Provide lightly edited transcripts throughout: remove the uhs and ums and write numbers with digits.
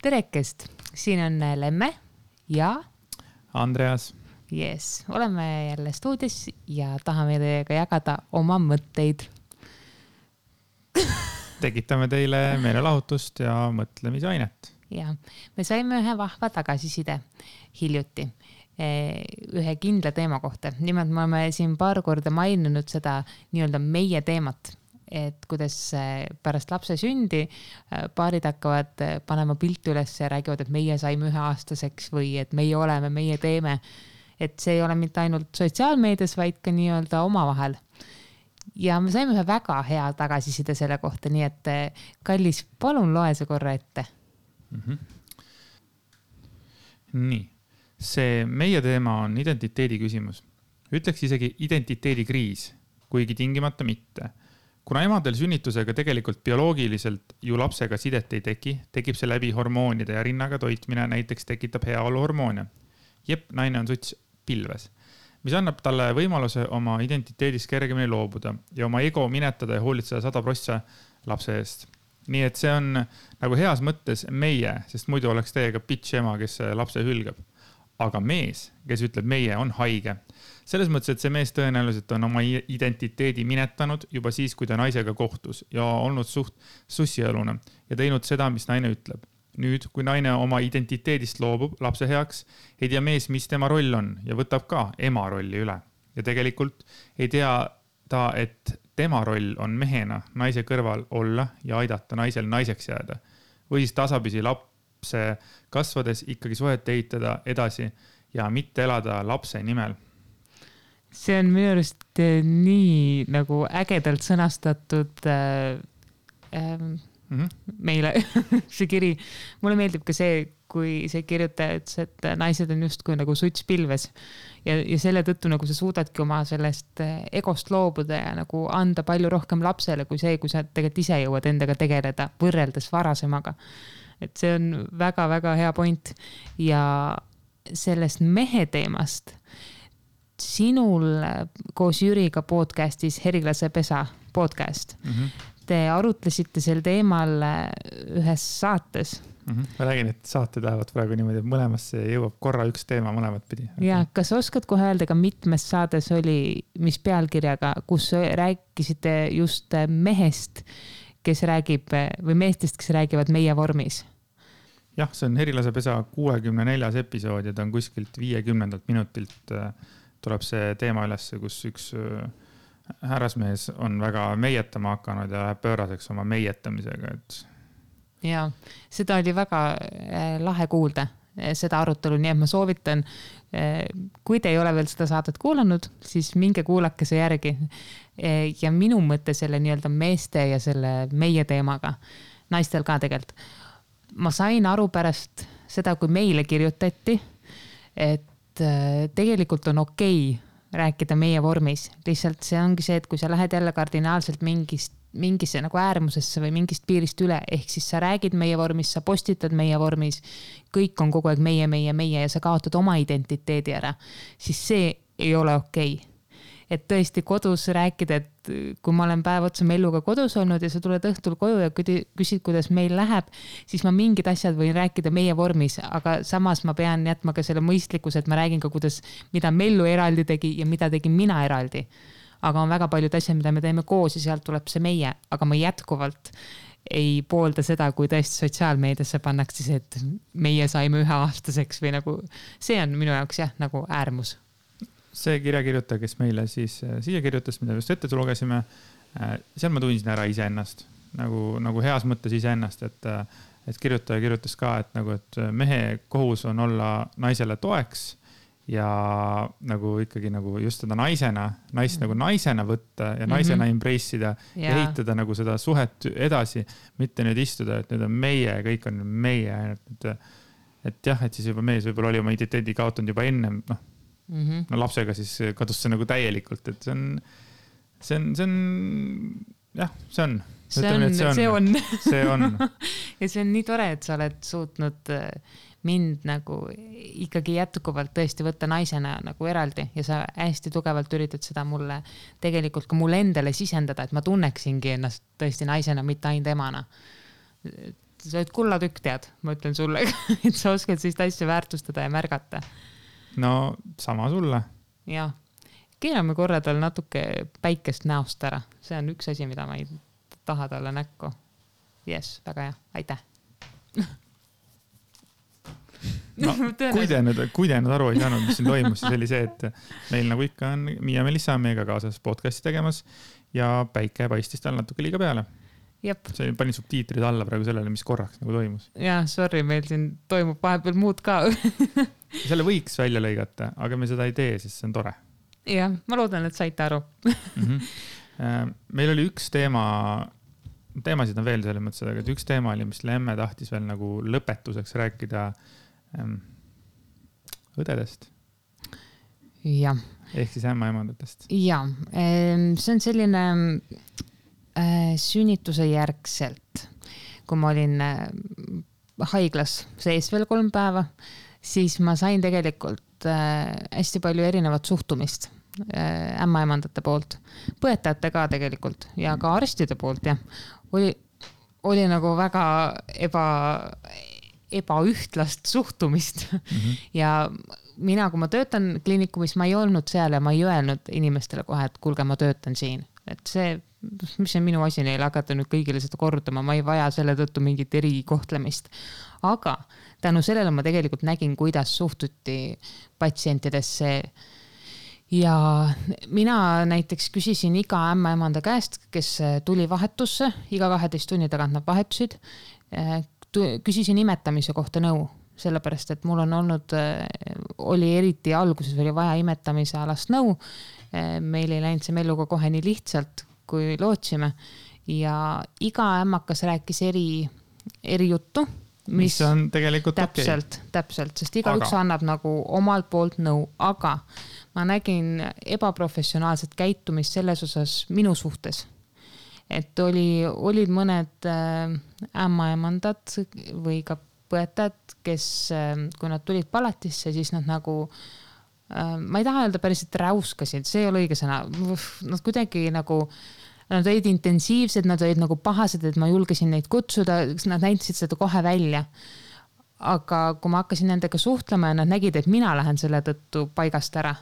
Terekest, siin on Lemme ja Andreas. Yes, oleme jälle stuudios ja tahame teiega jagada oma mõtteid. Tekitame teile meelelahutust ja mõtlemisainet. Ja, me saime ühe vahva tagasiside hiljuti ühe kindla teema kohta. Nimelt me oleme siin paar korda maininud seda nii-öelda meie teemat, et kuidas pärast lapse sündi paarid hakkavad panema pilti üles ja räägivad, et meie saime 1-aastaseks või et meie oleme, meie teeme. Et see ei ole mitte ainult sotsiaalmeedias, vaid ka nii-öelda omavahel. Ja me saime ühe väga hea tagasiside selle kohta, nii et kallis, palun loe see korra ette. Nii, see meie teema on identiteedi küsimus. Ütleks isegi identiteedikriis, kuigi tingimata mitte. Kuna emadel sünnitusega tegelikult bioloogiliselt ju lapsega sidet ei tekib see läbi hormoonide ja rinnaga toitmine näiteks tekitab heaolu hormoone. Jep, naine on suts pilves, mis annab talle võimaluse oma identiteedist kergemini loobuda ja oma ego minetada ja hoolitseda 100% lapse eest. Nii et see on nagu heas mõttes meie, sest muidu oleks teiega bitch ema, kes lapse hülgab. Aga mees, kes ütleb meie, on haige. Selles mõttes, et see mees tõenäoliselt on oma identiteedi minetanud juba siis, kui ta naisega kohtus ja olnud suht sussialune ja teinud seda, mis naine ütleb. Nüüd, kui naine oma identiteedist loobub lapse heaks, ei tea mees, mis tema roll on ja võtab ka ema rolli üle. Ja tegelikult ei tea ta, et tema roll on mehena naise kõrval olla ja aidata naisel naiseks jääda. Või siis tasapisi lapse kasvades ikkagi suhet ehitada edasi ja mitte elada lapse nimel. See on minu arust nii nagu ägedalt sõnastatud meile see kiri. Mulle meeldib ka see, kui see kirjutaja ütles, et naised on just kui nagu suts pilves ja selle tõttu nagu sa suudadki oma sellest egost loobuda ja nagu anda palju rohkem lapsele kui see, kui sa tegelikult ise jõuad endaga tegeleda võrreldes varasemaga. Et see on väga-väga hea point ja sellest mehe teemast sinul koos Jüriga podcastis Herilase pesa podcast. Te arutlesite sel teemal ühes saates. Ma räägin, et saated lähevad praegu niimoodi, et mõlemasse jõuab korra üks teema mõlemat pidi. Ja kas oskad kohe öelda, ka mitmes saades oli, mis pealkirjaga, kus rääkisite just mehest, kes räägib, või meestest, kes räägivad meie vormis? Jah, see on Herilase pesa 64. episood ja ta on kuskilt 50. minutilt tuleb see teema üles, kus üks härrasmees on väga meietama hakanud ja läheb pööraseks oma meietamisega. Ja, seda oli väga lahe kuulda, seda arutelu, nii et ma soovitan, kui te ei ole veel seda saadet kuulanud, siis minge kuulake see järgi. Ja minu mõte selle nii-öelda meeste ja selle meie teemaga, naistel ka tegelikult. Ma sain aru pärast seda, kui meile kirjutati, et tegelikult on okei rääkida meie vormis. Lihtsalt see ongi see, et kui sa lähed jälle kardinaalselt mingisse nagu äärmusesse või mingist piirist üle, ehk siis sa räägid meie vormis, sa postitad meie vormis, kõik on kogu aeg meie ja sa kaotad oma identiteedi ära, siis see ei ole okei. Et tõesti kodus rääkida, et kui ma olen päev otsa Melluga kodus olnud ja sa tuled õhtul koju ja küsid, kuidas meil läheb, siis ma mingid asjad võin rääkida meie vormis, aga samas ma pean jätma ka selle mõistlikkuse, et ma räägin ka, mida Mellu eraldi tegi ja mida tegin mina eraldi. Aga on väga paljud asjad, mida me teeme koos ja sealt tuleb see meie, aga ma jätkuvalt ei poolda seda, kui tõesti sotsiaalmeediasse pannakse see, et meie saime 1-aastaseks või nagu, see on minu jaoks jah, nagu äärmus. See kirjakirjutaja, kes meile siis siia kirjutas, mida just ette lugesime, seal ma tundsin ära iseennast, nagu heas mõttes iseennast, et kirjutaja kirjutas ka, et mehe kohus on olla naisele toeks ja nagu ikkagi nagu just seda naist nagu naisena võtta ja naisena embrace'ida ja ehitada nagu seda suhet edasi, mitte nüüd istuda, et nüüd on meie, kõik on meie, et jah, et siis juba mees võib-olla oli oma identiteedi kaotanud juba ennem, no lapsega siis kadus see nagu täielikult, et see on jah, see on. See on. Ja see on nii tore, et sa oled suutnud mind nagu ikkagi jätkuvalt tõesti võtta naisena nagu eraldi ja sa hästi tugevalt üritad seda mulle tegelikult ka mulle endale sisendada, et ma tunneksingi ennast tõesti naisena, mitte ainult emana. sa oled kullatükk, tead, ma ütlen sulle, et sa oskad sellist asja väärtustada ja märgata. No sama sulle. Jah, keerame korra tal natuke päikest näost ära. See on üks asi, mida ma ei taha talle näkku. Yes, väga hea, aitäh. No, kui te nüüd aru ei saanud, mis siin toimus, siis oli see, et meil nagu ikka on Miia Melissa meiega kaasas podcasti tegemas ja päike paistis tal natuke liiga peale. Jep. See panin subtiitrid alla praegu sellele, mis korraks nagu toimus. Jaa, sorry, meil siin toimub vahepeal muud ka. Selle võiks välja lõigata, aga me seda ei tee, sest see on tore. Jah, ma loodan, et saite aru. Meil oli üks teemasid on veel selles mõttes, aga üks teema oli, mis Lemme tahtis veel nagu lõpetuseks rääkida õdedest. Jah. Ehk siis ämmaemandatest. Jah, see on selline sünnituse järgselt, kui ma olin haiglas sees veel 3 päeva, siis ma sain tegelikult hästi palju erinevat suhtumist ämmaemandate poolt, põetajate ka tegelikult ja ka arstide poolt ja oli nagu väga ebaühtlast suhtumist. Ja mina, kui ma töötan kliinikumis, ma ei olnud seal ja ma ei öelnud inimestele kohe, et kuulge, ma töötan siin. Et see, mis on minu asi neile hakata nüüd kõigile seda kordama, ma ei vaja selle tõttu mingit erikohtlemist. Aga tänu sellele ma tegelikult nägin, kuidas suhtuti patsientidesse. Ja mina näiteks küsisin iga ämmaemanda käest, kes tuli vahetusse, iga 12 tunni tagant nad vahetusid, küsisin imetamise kohta nõu, sellepärast, et mul on oli eriti alguses oli vaja imetamise alast nõu. Meil ei läinud see melluga kohe nii lihtsalt, kui lootsime. Ja iga ämmakas rääkis eri juttu. Mis on tegelikult Täpselt, sest igaüks annab nagu omalt poolt nõu, aga ma nägin ebaprofessionaalset käitumist selles osas minu suhtes. Et olid mõned ämmaemandad või ka põetajad, kes, kui nad tulid palatisse, siis nad nagu, ma ei taha öelda päriselt räuskasid, see ei ole õige sõna. Nad kuidagi nagu, nad olid intensiivsed, nad olid nagu pahased, et ma julgesin neid kutsuda, nad näitasid seda kohe välja. Aga kui ma hakkasin nendega suhtlema ja nad nägid, et mina lähen selle tõttu paigast ära,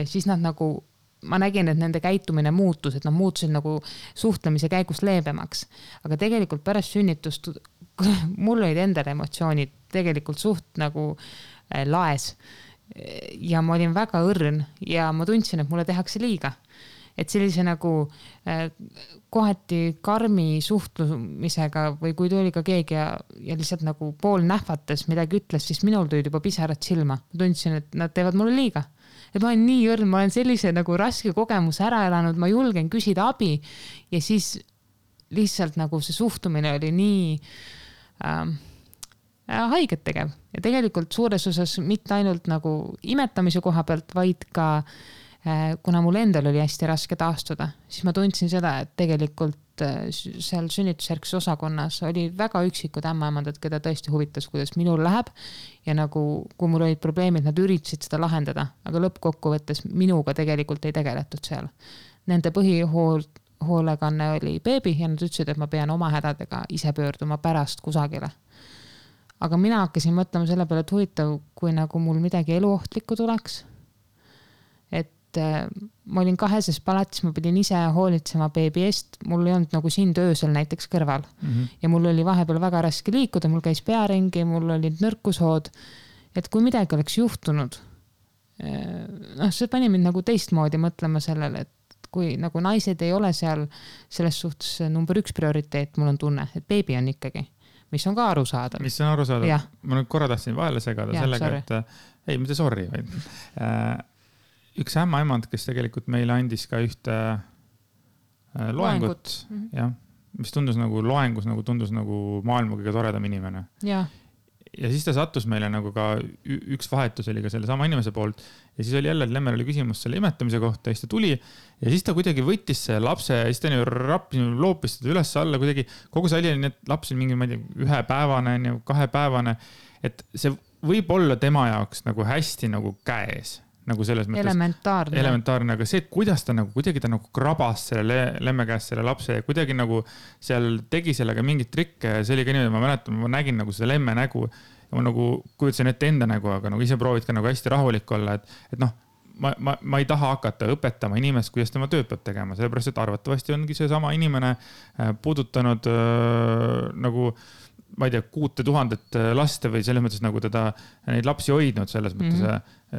siis nad nagu, ma nägin, et nende käitumine muutus, et nad muutusid nagu suhtlemise käigus leebemaks. Aga tegelikult pärast sünnitust mul olid endal emotsioonid tegelikult suht nagu laes. Ja ma olin väga õrn ja ma tundsin, et mulle tehakse liiga. Et sellise nagu kohati karmi suhtlumisega või kui tuli ka keegi ja lihtsalt nagu pool nähvates midagi ütles, siis minul tulid juba pisarad silma. Ma tundsin, et nad teevad mulle liiga. Et ma olen nii õrn, ma olen sellise nagu raske kogemus ära elanud, ma julgen küsida abi ja siis lihtsalt nagu see suhtumine oli nii haiget tegev. Ja tegelikult suures osas mitte ainult nagu imetamise koha pealt, vaid ka kuna mul endal oli hästi raske taastuda, siis ma tundsin seda, et tegelikult seal sünnitusjärgses osakonnas oli väga üksikud ämmaemandad, keda tõesti huvitas, kuidas minul läheb ja nagu, kui mul olid probleemid, nad üritasid seda lahendada, aga lõppkokkuvõttes minuga tegelikult ei tegeletud seal. Nende põhihoolekanne oli beebi ja nad ütlesid, et ma pean oma hädadega ise pöörduma pärast kusagile. Aga mina hakkasin mõtlema selle peale, et huvitav, kui nagu mul midagi eluohtlikku tuleks, et ma olin 2. palatis, ma pidin ise hoolitsema beebi eest, mul ei olnud nagu siin töösel näiteks kõrval ja mul oli vahepeal väga raske liikuda, mul käis pearingi, mul olid nõrkushood, et kui midagi oleks juhtunud, see pani mind nagu teistmoodi mõtlema sellele, et kui nagu naised ei ole seal selles suhtes number 1 prioriteet, mul on tunne, et beebi on ikkagi, mis on ka arusaadav. Mis on arusaadav? Ma nüüd korra tahtsin vahele segada sellega, et ei, mitte sorry, vaid üks ämmaemand, kes tegelikult meile andis ka ühte loengut, mis tundus nagu loengus, nagu tundus nagu maailma kõige toredam inimene. Ja siis ta sattus meile nagu ka üks vahetus oli ka selle sama inimese poolt ja siis oli jälle, et Lemmel oli küsimus selle imetamise kohta ja siis ta tuli ja siis ta kuidagi võttis see lapse ja siis ta loopis seda üles alla kuidagi, kogu see oli, et laps oli mingi, ma ei tea, 1 päevane, 2 päevane, et see võib olla tema jaoks nagu hästi nagu käes. nagu selles mõttes elementaarne, aga see, kuidas ta nagu kuidagi ta nagu krabas selle lemme käest selle lapse ja kuidagi nagu seal tegi sellega mingit trikke ja see oli ka niimoodi, ma mäletan, ma nägin nagu seda lemme nägu ja ma nagu kujutasin ette enda nägu, aga nagu ise proovid ka nagu hästi rahulik olla, et noh, ma ei taha hakata õpetama inimest, kuidas tema tööd peab tegema, sellepärast, et arvatavasti ongi see sama inimene puudutanud nagu ma ei tea, 6000 laste või selles mõttes nagu teda neid lapsi hoidnud selles mõttes,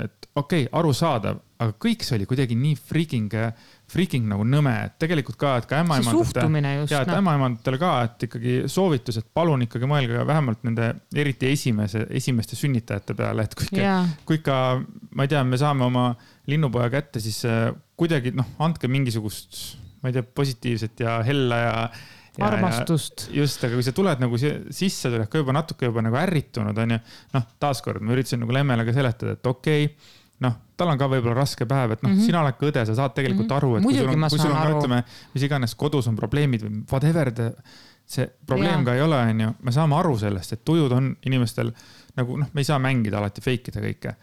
et okei, arusaadav, aga kõik see oli kuidagi nii freaking nagu nõme, et tegelikult ka, et ka ämmaemandatele ka, et ikkagi soovitus, et palun ikkagi mõelge vähemalt nende eriti esimeste sünnitajate peale, et kui ka, ma ei tea, me saame oma linnupoja kätte, siis kuidagi, andke mingisugust, ma ei tea, positiivset ja hella ja armastust. Just, aga kui sa tuled nagu sisse, tuled ka juba natuke juba nagu ärritunud, on ju, taaskord ma üritasin nagu lemmele ka seletada, et okei, tal on ka võib-olla raske päev, et sina oled ka õde, sa saad tegelikult aru, et kui sul on, ütleme, mis iganes kodus on probleemid või whatever, see probleem ka ei ole, on ju, me saame aru sellest, et tujud on inimestel nagu, me ei saa mängida alati fake ida kõike.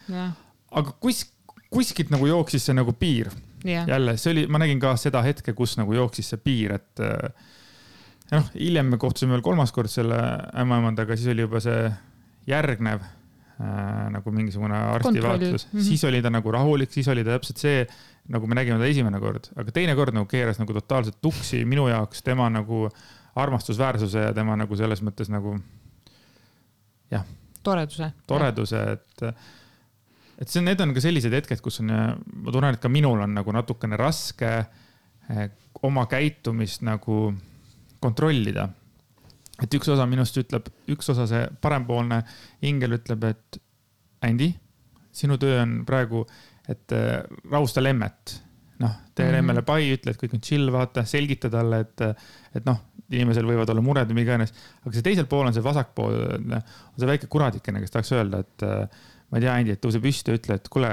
Aga kuskilt nagu jooksis see nagu piir. Jälle, see oli, ma nägin ka seda hetke, kus nagu jooksis see piir, et hiljem me kohtusime veel 3. kord selle ämmaemandaga, siis oli juba see järgnev nagu mingisugune arstivaatlus. Siis oli ta nagu rahulik, siis oli ta täpselt see, nagu me nägime ta esimene kord. Aga teine kord nagu keeras nagu totaalselt tuksi minu jaoks tema nagu armastusväärsuse ja tema nagu selles mõttes nagu toreduse, et need on ka sellised hetked, kus on, ma tunnen, et ka minul on nagu natukene raske oma käitumist nagu kontrollida. Et üks osa minust ütleb, üks osa see parempoolne ingel ütleb, et Andi, sinu töö on praegu, et rahusta lemmet. Tee lemmele pai, ütle, et kõik on chill, vaata, selgita talle, et inimesel võivad olla mured või iganes. Aga see teisel pool on see vasakpool, on see väike kuradikene, kes tahaks öelda, et ma ei tea, Andi, et tõuse püsti ja ütle, et kuule,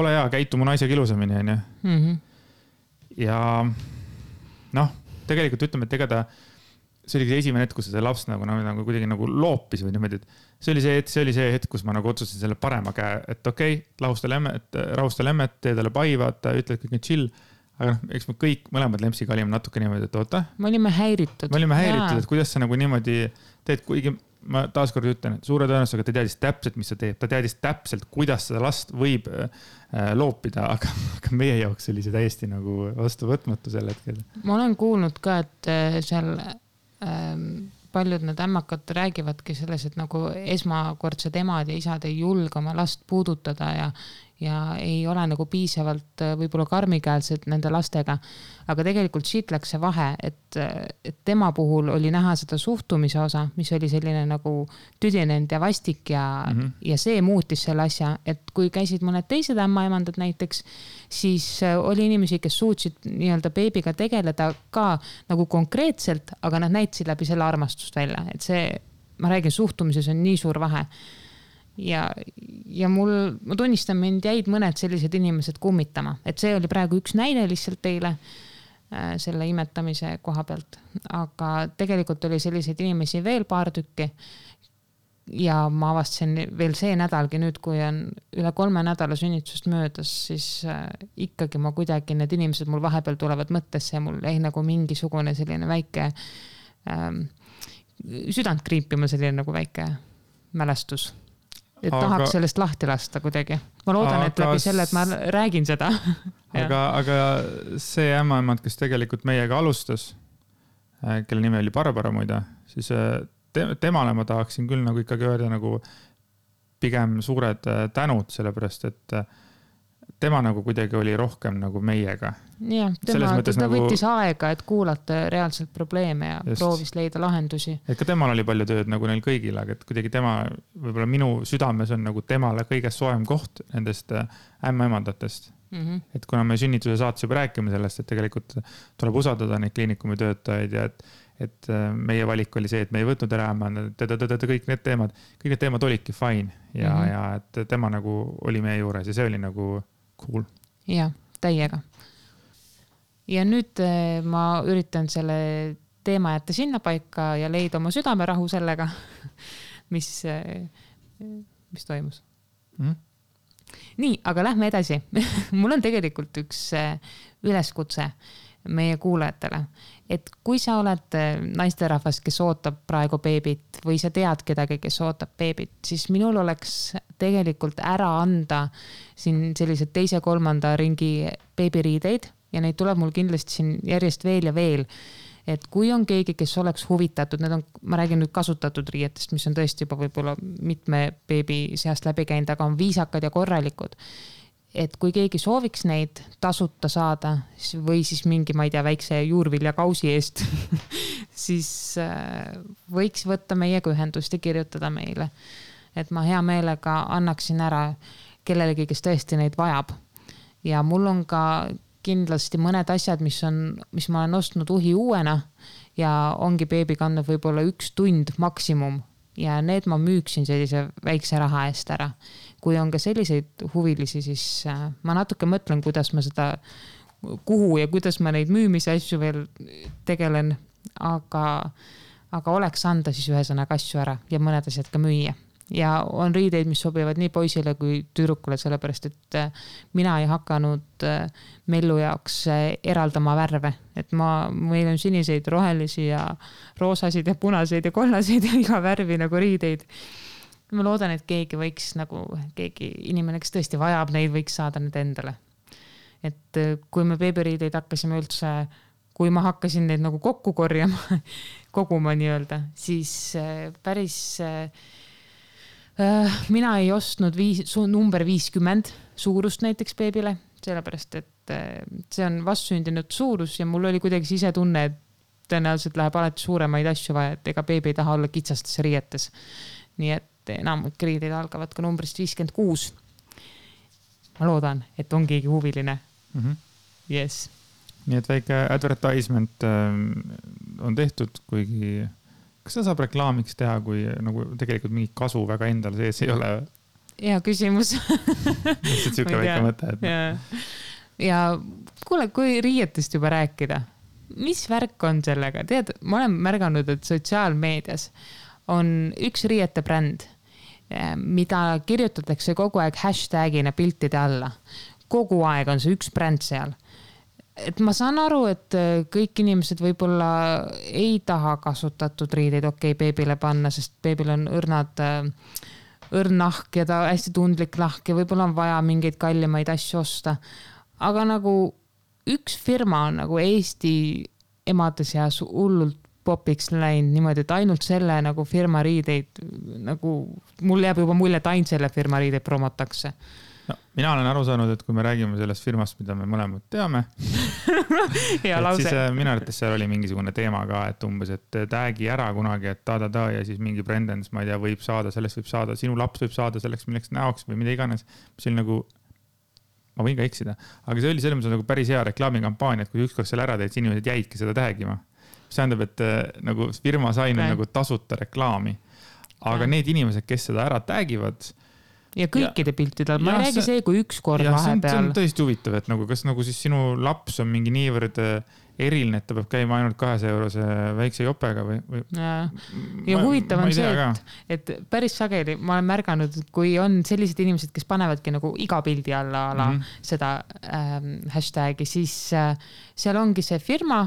ole hea, käitu mu naisega ilusamini, on ju. Ja tegelikult ütleme, et ega ta, see oli see esimene hetk, kus see laps nagu kuidagi nagu loopis või niimoodi, et see oli see hetk, kus ma nagu otsustasin selle parema käe, et okei, rahusta lemmet, tee talle pai, vaata, ütle, et kõik on chill, aga eks me kõik mõlemad lempsiga olime natuke niimoodi, et oota. Me olime häiritud, et kuidas sa nagu niimoodi teed, kuigi ma taaskord ütlen, et suure tõenäosusega ta teadis täpselt, mis sa teeb, ta teadis täpselt, kuidas seda last võib loopida, aga meie jaoks oli see täiesti nagu vastuvõtmatu sel hetkel. Ma olen kuulnud ka, et seal paljud need ämmakad räägivadki selles, et nagu esmakordsed emad ja isad ei julge oma last puudutada ja ei ole nagu piisavalt võib-olla karmikäelsed nende lastega. Aga tegelikult siit läks see vahe, et tema puhul oli näha seda suhtumise osa, mis oli selline nagu tüdinenud ja vastik ja see muutis selle asja, et kui käisid mõned teised ämmaemandad näiteks, siis oli inimesi, kes suutsid nii-öelda beebiga tegeleda ka nagu konkreetselt, aga nad näitasid läbi selle armastust välja, et see, ma räägin, suhtumises on nii suur vahe. Ja ma tunnistan, mind jäid mõned sellised inimesed kummitama, et see oli praegu üks näide lihtsalt teile selle imetamise koha pealt, aga tegelikult oli selliseid inimesi veel paar tükki ja ma avastasin veel see nädalgi nüüd, kui on üle 3 nädala sünnitusest möödas, siis ikkagi ma kuidagi, need inimesed mul vahepeal tulevad mõttesse ja mul ei nagu mingisugune selline väike südant kriipima, selline nagu väike mälestus. Et tahaks sellest lahti lasta kuidagi. Ma loodan, et läbi selle, et ma räägin seda. aga see ämmaemand, kes tegelikult meiega alustas, kelle nimi oli Barbara muide, siis temale ma tahaksin küll nagu ikkagi öelda nagu pigem suured tänud, sellepärast, et tema nagu kuidagi oli rohkem nagu meiega. Jah, ta võttis aega, et kuulata reaalselt probleeme ja proovis leida lahendusi. Et ka temal oli palju tööd nagu neil kõigil, aga et kuidagi tema, võib-olla minu südames on nagu temale kõige soem koht nendest ämmaemandatest. Et kuna me sünnituse saates juba rääkime sellest, et tegelikult tuleb usaldada neid kliinikumi töötajaid ja et meie valik oli see, et me ei võtnud ära kõik need teemad olidki fine ja et tema nagu oli meie juures ja see oli nagu cool. Ja, täiega. Ja nüüd ma üritan selle teema jätta sinna paika ja leida oma südamerahu sellega, mis toimus. nii, aga lähme edasi. Mul on tegelikult üks üleskutse meie kuulajatele, et kui sa oled naisterahvas, kes ootab praegu beebit või sa tead kedagi, kes ootab beebit, siis minul oleks tegelikult ära anda siin sellised 2.-3. ringi beebiriideid ja neid tuleb mul kindlasti siin järjest veel ja veel. Et kui on keegi, kes oleks huvitatud, need on, ma räägin nüüd kasutatud riietest, mis on tõesti juba võib-olla mitme beebi seast läbi käinud, aga on viisakad ja korralikud. Et kui keegi sooviks neid tasuta saada või siis mingi, ma ei tea, väikse juurvilja kausi eest, siis võiks võtta meiega ühendust ja kirjutada meile. Et ma hea meelega annaksin ära kellelegi, kes tõesti neid vajab. Ja mul on ka kindlasti mõned asjad, mis ma olen ostnud uhi uuena ja ongi beebi kandnud võib-olla 1 tund maksimum ja need ma müüksin sellise väikse raha eest ära. Kui on ka selliseid huvilisi, siis ma natuke mõtlen, kuidas ma seda, kuhu ja kuidas ma neid müümise asju veel tegelen, aga oleks anda siis ühesõnaga asju ära ja mõned asjad ka müüa. Ja on riideid, mis sobivad nii poisile kui tüdrukule, sellepärast, et mina ei hakanud Mellu jaoks eraldama värve. Et meil on siniseid, rohelisi ja roosasid ja punaseid ja kollaseid ja iga värvi nagu riideid. Ma loodan, et keegi võiks keegi inimene, kes tõesti vajab neid, võiks saada need endale. Et kui me beebiriideid hakkasime üldse, kui ma hakkasin neid nagu kokku korjama, koguma nii-öelda, siis päris mina ei ostnud number 50 suurust näiteks beebile, sellepärast, et see on vastsündinud suurus ja mul oli kuidagi sisetunne, et tõenäoliselt läheb alati suuremaid asju vaja, et ega beebi ei taha olla kitsastes riietes. Nii et enamik riideid algavad ka numbrist 56. Ma loodan, et on keegi huviline. Yes. Nii et väike advertisement on tehtud, kuigi kas seda saab reklaamiks teha, kui nagu tegelikult mingi kasu väga endal sees ei ole? Hea küsimus. Lihtsalt siuke väike mõte. Ja kuule, kui riietest juba rääkida, mis värk on sellega? Tead, ma olen märganud, et sotsiaalmeedias on üks riiete bränd, mida kirjutatakse kogu aeg hashtagina piltide alla. Kogu aeg on see üks bränd seal. Et ma saan aru, et kõik inimesed võib-olla ei taha kasutatud riideid beebile panna, sest beebil on õrn nahk ja ta hästi tundlik nahk ja võib-olla on vaja mingeid kallimaid asju osta. Aga nagu üks firma on nagu Eesti emade seas hullult popiks läinud niimoodi, et ainult selle nagu firma riideid, nagu mul jääb juba mulje, et ainult selle firma riideid promotakse. No, mina olen aru saanud, et kui me räägime sellest firmast, mida me mõlemad teame, siis minu arvates seal oli mingisugune teema ka, et umbes, et täägi ära kunagi, et ja siis mingi Brendens, ma ei tea, võib saada, sellest võib saada, sinu laps võib saada selleks milleks näoks või mida iganes. See oli nagu, ma võin ka eksida, aga see oli selles mõttes nagu päris hea reklaamikampaania, et kui ükskord seal ära teed, siis inimesed jäidki seda täägima. See tähendab, et nagu firma sai nagu tasuta reklaami, aga need inimesed, kes seda ära täägivad, ja kõikide piltidel, ma ei räägi see, kui üks kord vahepeal. See on tõesti huvitav, et nagu, kas nagu siis sinu laps on mingi niivõrd eriline, et ta peab käima ainult 200 eurose väikse jopega või? Ja huvitav on see, et päris sageli ma olen märganud, kui on sellised inimesed, kes panevadki nagu iga pildi alla seda hashtagi, siis seal ongi see firma,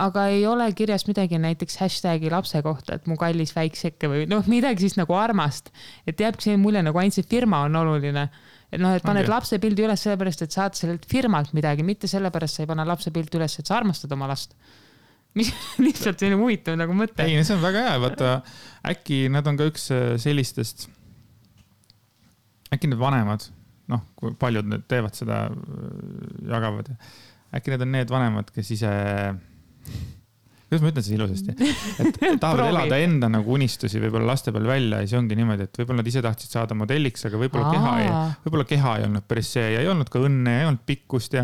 aga ei ole kirjas midagi näiteks hashtagi lapse kohta, et mu kallis väikseke või midagi siis nagu armast. Et jääbki see mulje, nagu ainult see firma on oluline. Et et paned lapse pildi üles sellepärast, et saad sellelt firmalt midagi, mitte sellepärast sa ei pane lapse pildi üles, et sa armastad oma last. Mis lihtsalt selline huvitav nagu mõte. Ei, see on väga hea. Vaata, äkki nad on ka üks sellistest, äkki need vanemad, kui paljud need teevad seda, jagavad. Äkki need on need vanemad, kes ise... Kuidas ma ütlen siis ilusasti? Et tahavad elada enda nagu unistusi võib-olla laste peal välja ja see ongi niimoodi, et võib-olla nad ise tahtsid saada modelliks, aga võib-olla keha ei olnud päris see ja ei olnud ka õnne, ei olnud pikkust ja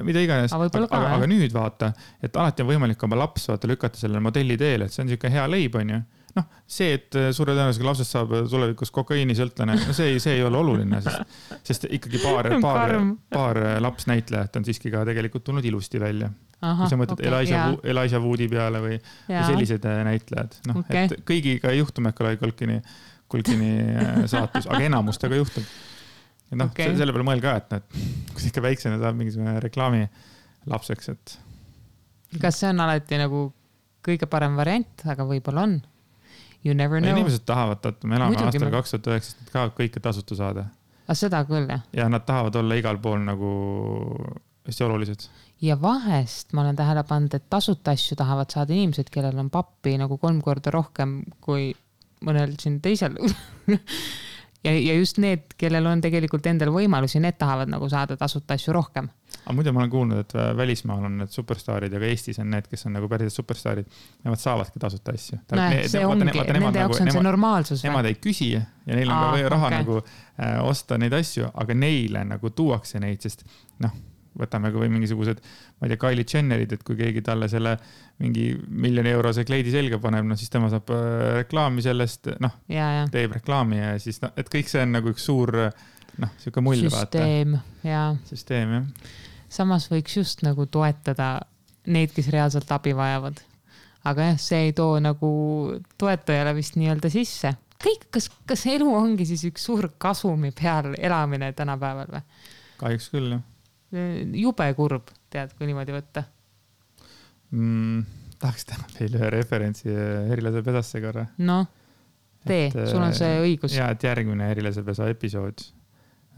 mida iganes. Aga nüüd vaata, et alati on võimalik oma laps lükata sellele modelli teele, et see on siuke hea leib, on ju. See, et suure tõenäosusega lapsest saab tulevikus kokaiini sõltlane, see ei ole oluline, sest ikkagi paar lapsnäitlejat on siiski ka tegelikult tulnud ilusti välja. Kui sa mõtled Elijah Woodi peale või sellised näitlejad. Et kõigiga ei juhtu Macaulay Culkini saatus, aga enamustega juhtub. noh, selle peale mõelge ka, et noh, kui ikka väiksena saab mingisugune reklaami lapseks, et. Kas see on alati nagu kõige parem variant, aga võib-olla on. You never know. Inimesed tahavad, et me elame aastal 2019, nad tahavad kõike tasuta saada. Aga seda küll, jah. Ja nad tahavad olla igal pool nagu hästi olulised. Ja vahest ma olen tähele pannud, et tasuta asju tahavad saada inimesed, kellel on pappi nagu 3 korda rohkem kui mõnel siin teisel. Ja just need, kellel on tegelikult endal võimalusi, need tahavad nagu saada tasuta asju rohkem. Aga muidu ma olen kuulnud, et välismaal on need superstaarid ja ka Eestis on need, kes on nagu päriselt superstaarid. Nemad saavadki tasuta asju. See ongi, nende jaoks on see normaalsus. Nemad ei küsi ja neil on ka raha nagu osta neid asju, aga neile nagu tuuakse neid, sest noh, võtame ka või mingisugused, ma ei tea, Kylie Jennerid, et kui keegi talle selle mingi €1 miljoni kleidi selga paneb, no siis tema saab reklaami sellest, noh, teeb reklaami ja siis, no, et kõik see on nagu üks suur, noh, siuke mull vaata. Süsteem, jah. Samas võiks just nagu toetada neid, kes reaalselt abi vajavad. Aga jah, see ei too nagu toetajale vist nii-öelda sisse. Kõik, kas elu ongi siis üks suur kasumi peal elamine tänapäeval või? Kahjuks küll, jah. Jube kurb, tead, kui niimoodi võtta. Tahaks teha veel ühe referentsi Erilase pesasse korra. No, sul on see õigus. Ja, et järgmine Erilase pesa episood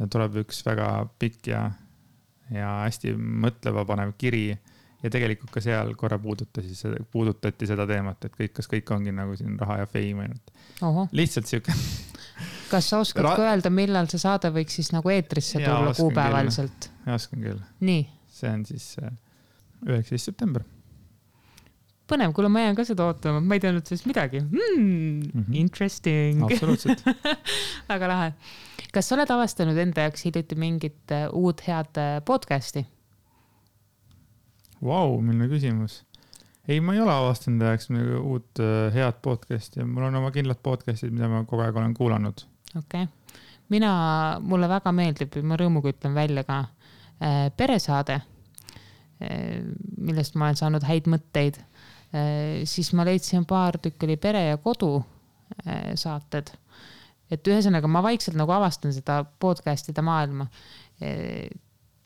tuleb üks väga pikk ja hästi mõtleva panev kiri ja tegelikult ka seal korra puudutati seda teemat, et kas kõik ongi nagu siin raha ja fame ainult. Lihtsalt siuke. Kas sa oskad öelda, millal see saade võiks siis nagu eetrisse tulla kuupäevaliselt? Ja, oskan küll. Nii. See on siis 19. september. Põnev, kuule, ma jään ka seda ootama. Ma ei teadnud sellest midagi. Interesting. Absoluutselt. Väga lahe. Kas sa oled avastanud enda jaoks hiljuti mingit uut head podcasti? Vau, milline küsimus. Ei, ma ei ole avastanud ajaks uut head podcasti ja mul on oma kindlad podcastid, mida ma kogu aeg olen kuulanud. Okei. Mulle väga meeldib, ma rõõmuga ütlen välja ka peresaade, millest ma olen saanud häid mõtteid. Siis ma leidsin paar tükki oli Pere ja kodu saated. Et ühesõnaga ma vaikselt nagu avastan seda podcastide maailma.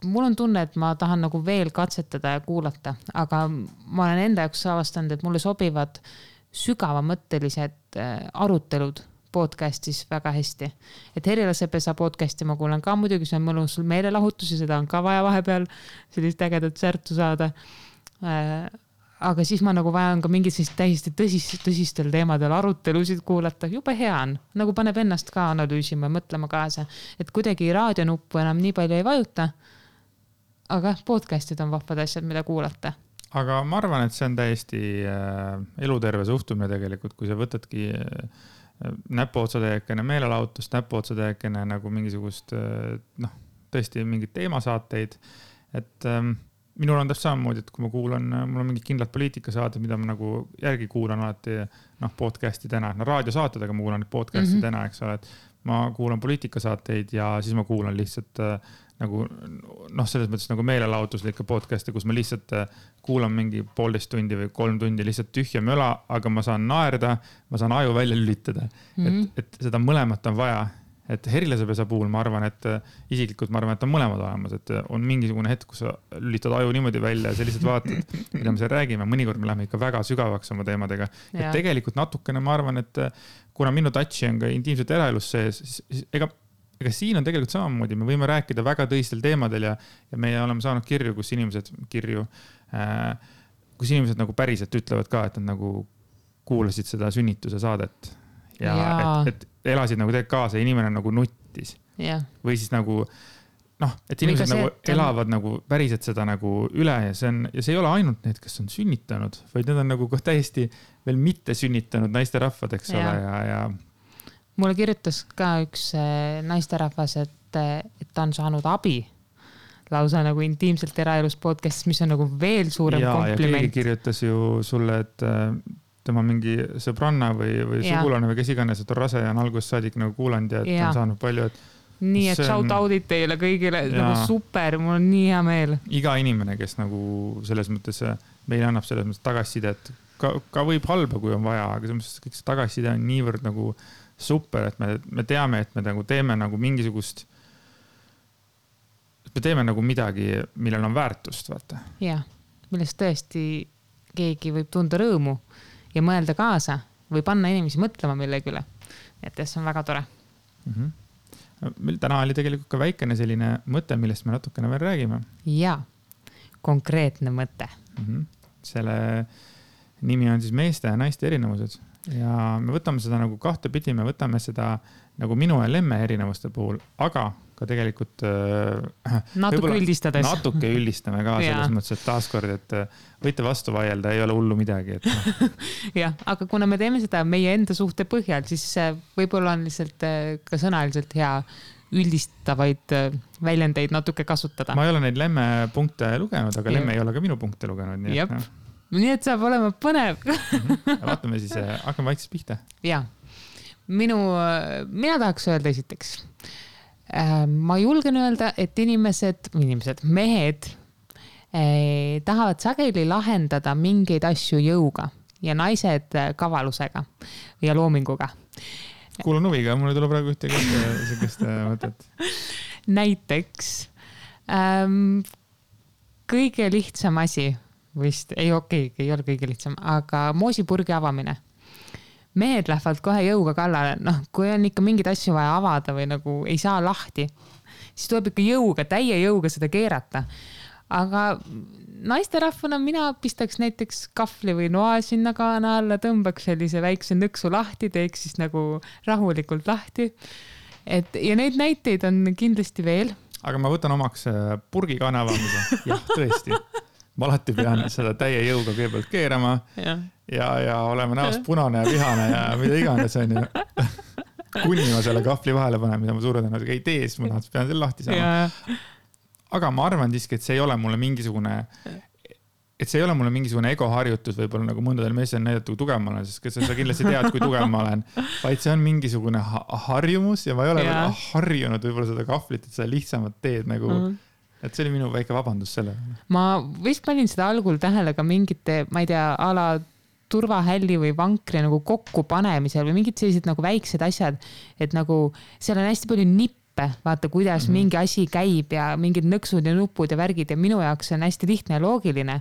Mul on tunne, et ma tahan nagu veel katsetada ja kuulata, aga ma olen enda jaoks avastanud, et mulle sobivad sügavamõttelised arutelud podcastis väga hästi. Et Erilase pesa podcasti ma kuulen ka muidugi, see on mõnus meelelahutus ja seda on ka vaja vahepeal sellist ägedat särtu saada. Aga siis ma nagu vajan ka mingid täiesti tõsistel teemadel arutelusid kuulata. Jube hea on, nagu paneb ennast ka analüüsima ja mõtlema kaasa, et kuidagi raadionuppu enam nii palju ei vajuta. Aga podcastid on vahvad asjad, mida kuulata. Aga ma arvan, et see on täiesti eluterve suhtumine tegelikult, kui sa võtadki näpuotsatäiekene meelelahutust, näpuotsatäiekene nagu mingisugust, noh, tõesti mingid teemasaateid. Et minul on täpselt samamoodi, et kui ma kuulan, mul on mingid kindlad poliitikasaaded, mida ma nagu järgi kuulan alati, noh, podcasti täna, no raadiosaated, aga ma kuulan podcasti täna, eks ole, et ma kuulan poliitikasaateid ja siis ma kuulan lihtsalt nagu, noh, selles mõttes nagu meelelahutuslikke podcasti, kus ma lihtsalt kuulan mingi 1,5 tundi või 3 tundi lihtsalt tühja möla, aga ma saan naerda, ma saan aju välja lülitada. Et seda mõlemat on vaja. Et Erilase pesa puhul ma arvan, et isiklikult ma arvan, et on mõlemad olemas, et on mingisugune hetk, kus sa lülitad aju niimoodi välja ja sa lihtsalt vaatad, mida me seal räägime. Mõnikord me läheme ikka väga sügavaks oma teemadega. Et tegelikult natukene ma arvan, et kuna minu touchi on ka intiimselt eraelus sees, siis ega siin on tegelikult samamoodi, me võime rääkida väga tõsistel teemadel ja me oleme saanud kirju, kus inimesed nagu päriselt ütlevad ka, et nad nagu kuulasid seda sünnituse saadet ja et elasid nagu tegelikult kaasa ja inimene nagu nuttis. Või siis nagu, noh, et inimesed nagu elavad nagu päriselt seda nagu üle ja see ei ole ainult need, kes on sünnitanud, vaid need on nagu täiesti veel mitte sünnitanud naisterahvad, eks ole, ja mulle kirjutas ka üks naisterahvas, et ta on saanud abi lausa nagu intiimselt eraelus podcastis, mis on nagu veel suurem kompliment. Ja keegi kirjutas ju sulle, et tema mingi sõbranna või sugulane või kes iganes, et on rase ja on algusest saadik nagu kuulanud ja et on saanud palju, et nii, et shout out'id teile kõigile, nagu super, mul on nii hea meel. Iga inimene, kes nagu selles mõttes meile annab selles mõttes tagasisidet, ka võib halba, kui on vaja, aga selles mõttes kõik see tagasiside on niivõrd nagu super, et me teame, et me nagu teeme nagu mingisugust me teeme nagu midagi, millel on väärtust, vaata. Jah, millest tõesti keegi võib tunda rõõmu ja mõelda kaasa või panna inimesi mõtlema millegi üle. Et see on väga tore. Meil täna oli tegelikult ka väikene selline mõte, millest me natukene veel räägime. Ja, konkreetne mõte. Selle nimi on siis meeste ja naiste erinevused. Ja me võtame seda nagu kahte pidi, me võtame seda nagu minu ja Lemme erinevuste puhul, aga ka tegelikult natuke üldistades. Natuke üldistame ka selles mõttes, et taaskord, et võite vastu vaielda, ei ole hullu midagi. Jah, aga kuna me teeme seda meie enda suhte põhjal, siis võib-olla on lihtsalt ka sõnaliselt hea üldistavaid väljendeid natuke kasutada. Ma ei ole neid Lemme punkte lugenud, aga Lemme ei ole ka minu punkte lugenud. Nii et saab olema põnev. Vaatame siis, hakkame vaikselt pihta. Ja, mina tahaks öelda esiteks. Ma julgen öelda, et mehed tahavad sageli lahendada mingeid asju jõuga ja naised kavalusega ja loominguga. Kuulun huviga, mul ei tule praegu sellist mõtet. Näiteks kõige lihtsam asi vist, ei ole kõige lihtsam, aga moosipurgi avamine. Mehed lähevad kohe jõuga kallale, kui on ikka mingid asju vaja avada või nagu ei saa lahti, siis tuleb ikka täie jõuga seda keerata. Aga naisterahvana mina pistaks näiteks kahvli või noa sinna kaana alla, tõmbaks sellise väikse nõksu lahti, teeks siis nagu rahulikult lahti. Ja neid näiteid on kindlasti veel. Aga ma võtan omaks purgi kaana avamise. Jah, tõesti. Ma alati pean seda täie jõuga kõigepealt keerama ja oleme näost punane ja vihane ja mida iganes on ju. Kuni ma selle kahvli vahele panen, mida ma suure tõenäoliselt ei tee, siis ma pean selle lahti saama. Aga ma arvan siiski, et see ei ole mulle mingisugune egoharjutus, võib-olla nagu mõndadel meestel näidata, kui tugev ma olen, sest sa kindlasti tead, kui tugev ma olen, vaid see on mingisugune harjumus ja ma ei ole veel harjunud võib-olla seda kahvlit, et seda lihtsamat teed nagu et see oli minu väike vabandus selle. Ma vist panin seda algul tähele ka mingite, ma ei tea, ala turvahälli või vankri nagu kokku panemisel või mingid sellised nagu väiksed asjad, et nagu seal on hästi palju nippe, vaata kuidas mingi asi käib ja mingid nõksud ja nupud ja värgid ja minu jaoks on hästi lihtne ja loogiline.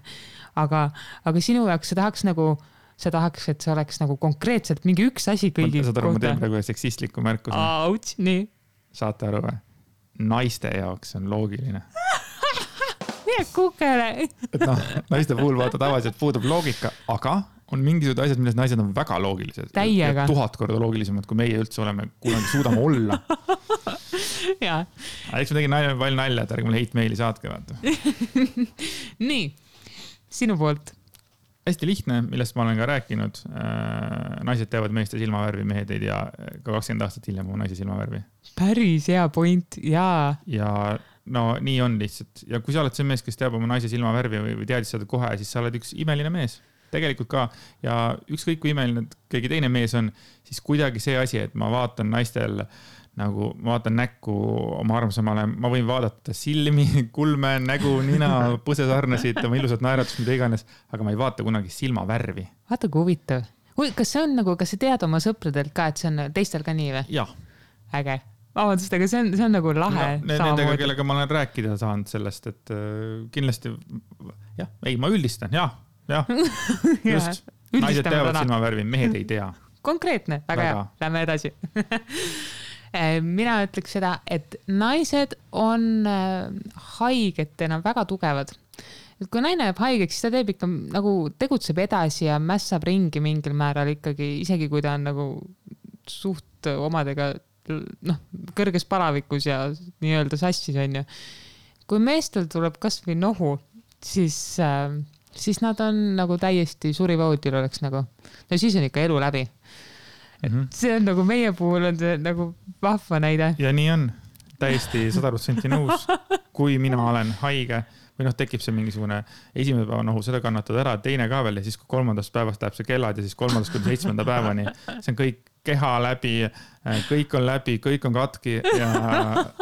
Aga sinu jaoks sa tahaks, et see oleks nagu konkreetselt mingi üks asi kõigi kohta. Saad aru, ma teen praegu seksistliku märkuse. Auts, nii. Saate aru või? Naiste jaoks on loogiline. Mine kukele. Et naiste puhul vaata tavaliselt puudub loogika, aga on mingisugused asjad, milles naised on väga loogilised. Täiega. 1000 korda loogilisemad, kui meie üldse oleme, kunagi suudame olla. Jaa. Eks ma tegin palju nalja, et ärge mulle hate-maili saatke, vaata. Nii, sinu poolt. Hästi lihtne, millest ma olen ka rääkinud. Naised teavad meeste silmavärvi, mehed ei tea ka 20 aastat hiljem oma naise silmavärvi. Päris hea point, jaa. Ja nii on lihtsalt. Ja kui sa oled see mees, kes teab oma naise silmavärvi või teadis seda kohe, siis sa oled üks imeline mees. Tegelikult ka. Ja ükskõik kui imeline keegi teine mees on, siis kuidagi see asi, et ma vaatan naistel nagu ma vaatan näkku oma armsamale, ma võin vaadata silmi, kulme, nägu, nina, põsesarnesid, oma ilusat naeratust, mida iganes, aga ma ei vaata kunagi silmavärvi. Vaata kui huvitav. Kas see on nagu, kas sa tead oma sõpradelt ka, et see on teistel ka nii või? Jah. Äge. Vabandust, aga see on nagu lahe. Nendega, kellega ma olen rääkida saanud sellest, et kindlasti, ma üldistan, jah. Just. Naised teavad silmavärvi, mehed ei tea. Konkreetne, väga hea. Lähme edasi. Mina ütleks seda, et naised on haigetena väga tugevad. Et kui naine jääb haigeks, siis ta teeb ikka nagu tegutseb edasi ja mässab ringi mingil määral ikkagi, isegi kui ta on nagu suht omadega kõrges palavikus ja nii-öelda sassis on ju. Kui meestel tuleb kas või nohu, siis nad on nagu täiesti surivoodil oleks nagu. No siis on ikka elu läbi. See on nagu meie puhul on see nagu vahva näide. Ja nii on täiesti 100% nõus. Kui mina olen haige, või noh, tekib see mingisugune esimene päeva nohu, seda kannatad ära, teine ka veel ja siis kui 3. päevast läheb see kellad ja siis 3. kuni 7. päevani, see on kõik keha läbi, kõik on läbi, kõik on katki ja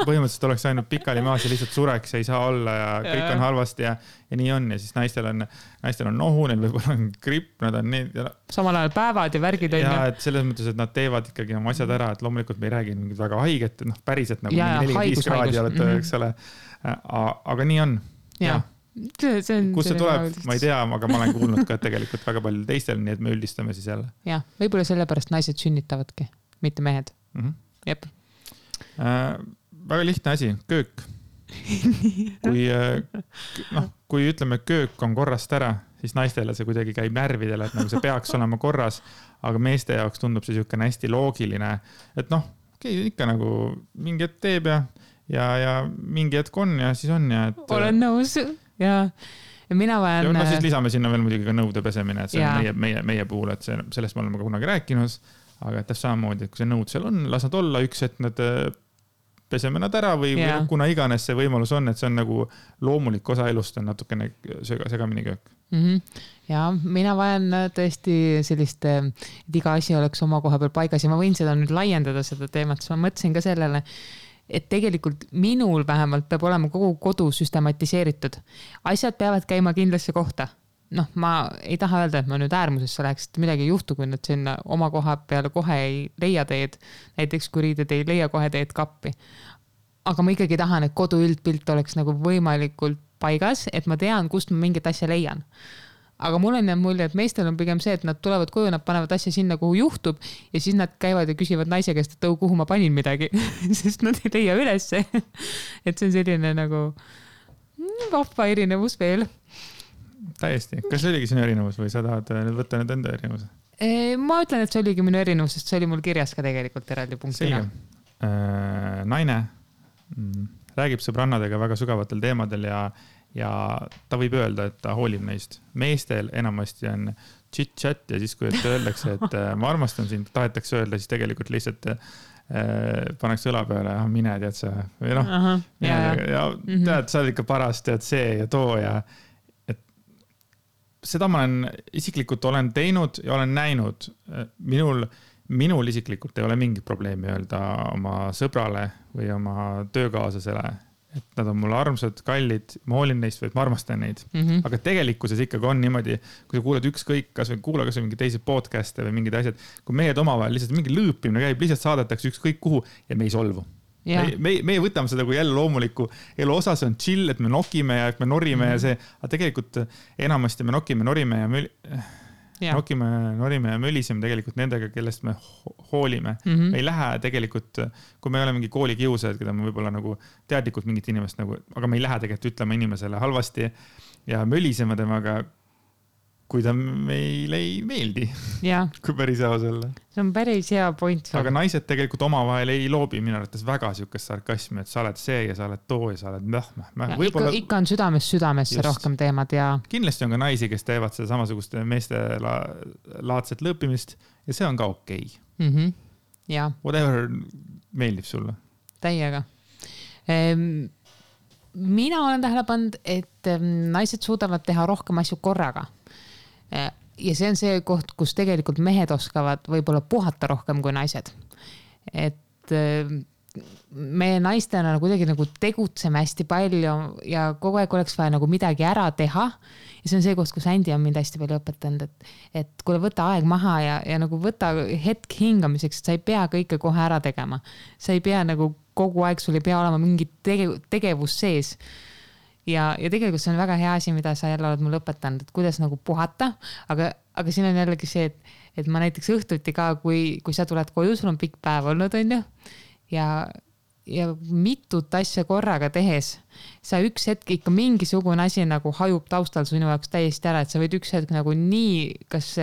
põhimõtteliselt oleks ainult pikali maas ja lihtsalt sureks ei saa olla ja kõik on halvasti ja nii on ja siis naistel on nohu, neil võib-olla on gripp, nad on nii. Samal ajal päevad ja värgid on. Ja, et selles mõttes, et nad teevad ikkagi oma asjad ära, et loomulikult me ei räägi mingid väga haiget, noh päriselt nagu 45 kraadi olete, eks ole. Aga nii on. Ja. Kus see tuleb, ma ei tea, aga ma olen kuulnud ka tegelikult väga palju teistel, nii et me üldistame siis jälle. Jah, võib-olla sellepärast naised sünnitavadki, mitte mehed. Jep. Väga lihtne asi, köök. Kui ütleme, köök on korrast ära, siis naistele see kuidagi käib närvidele, et nagu see peaks olema korras, aga meeste jaoks tundub see niisugune hästi loogiline, et noh, ikka nagu mingi hetk teeb ja mingi hetk on ja siis on ja et... Olen nõus ja mina vajan... Ja siis lisame sinna veel muidugi ka nõude pesemine, et see on meie puhul, et sellest me oleme ka kunagi rääkinud, aga et samamoodi, et kui see nõud seal on, las nad olla üks, et nad peseme nad ära või kuna iganes see võimalus on, et see on nagu loomulik osa elust on natukene segamini köök. Ja mina vajan tõesti sellist, et iga asi oleks oma koha peal paigas ja ma võin seda nüüd laiendada seda teemat, siis ma mõtlesin ka sellele, et tegelikult minul vähemalt peab olema kogu kodu süstematiseeritud. Asjad peavad käima kindlasse kohta. Noh, ma ei taha öelda, et ma nüüd äärmusesse läheks, et midagi ei juhtu, kui nad sinna oma koha peale kohe ei leia teed. Näiteks kui riided ei leia kohe teed kappi. Aga ma ikkagi tahan, et kodu üldpilt oleks nagu võimalikult paigas, et ma tean, kust ma mingit asja leian. Aga mul on jäänud mulje, et meestel on pigem see, et nad tulevad koju, nad panevad asja sinna, kuhu juhtub ja siis nad käivad ja küsivad naise käest, et kuhu ma panin midagi, sest nad ei leia ülesse. Et see on selline nagu vahva erinevus veel. Täiesti. Kas see oligi sinu erinevus või sa tahad nüüd võtta nüüd enda erinevus? Ma ütlen, et see oligi minu erinevus, sest see oli mul kirjas ka tegelikult eraldi punktina. Naine räägib sõbrannadega väga sügavatel teemadel ja ta võib öelda, et ta hoolib neist. Meestel enamasti on chit-chat ja siis, kui öeldakse, et ma armastan sind, tahetakse öelda, siis tegelikult lihtsalt paneks õla peale, mine tead sa. Või noh, tead, sa oled ikka paras, tead see ja too ja et seda ma isiklikult olen teinud ja olen näinud. Minul isiklikult ei ole mingit probleemi öelda oma sõbrale või oma töökaaslasele, et nad on mulle armsad, kallid, ma hoolin neist või et ma armastan neid. Aga tegelikkuses ikkagi on niimoodi, kui sa kuulad ükskõik, kas või kuula kas või mingi teisi podcast'e või mingid asjad, kui mehed omavahel lihtsalt mingi lõõpimine käib, lihtsalt saadetakse ükskõik kuhu ja me ei solvu. Meie võtame seda kui jälle loomuliku elu osa, see on chill, et me nokime ja et me norime ja see, aga tegelikult enamasti me nokime, norime ja norime ja möliseme tegelikult nendega, kellest me hoolime. Me ei lähe tegelikult, kui me ei ole mingi koolikiusajad, keda me võib-olla nagu teadlikult mingit inimest nagu, aga me ei lähe tegelikult ütlema inimesele halvasti ja mölisema temaga, kui ta meile ei meeldi. Kui päris aus olla. See on päris hea point. Aga naised tegelikult omavahel ei loobi minu arvates väga siukest sarkasmi, et sa oled see ja sa oled too ja sa oled Ikka on südamesse rohkem teemad ja... Kindlasti on ka naisi, kes teevad seda samasugust meeste laadset lõõpimist ja see on ka okei. Whatever meeldib sulle. Täiega. Mina olen tähele pannud, et naised suudavad teha rohkem asju korraga. Ja see on see koht, kus tegelikult mehed oskavad võib-olla puhata rohkem kui naised. Et me naistena kuidagi nagu tegutseme hästi palju ja kogu aeg oleks vaja nagu midagi ära teha. Ja see on see koht, kus Andy on mind hästi palju õpetanud, et kuule võta aeg maha ja nagu võta hetk hingamiseks, et sa ei pea kõike kohe ära tegema. Sa ei pea nagu kogu aeg, sul ei pea olema mingi tegevus sees. Ja tegelikult see on väga hea asi, mida sa jälle oled mulle õpetanud, et kuidas nagu puhata, aga siin on jällegi see, et ma näiteks õhtuti ka, kui sa tuled koju, sul on pikk päev olnud, on ju, ja mitut asja korraga tehes, sa üks hetk ikka mingisugune asi nagu hajub taustal sinu jaoks täiesti ära, et sa võid üks hetk nagu nii, kas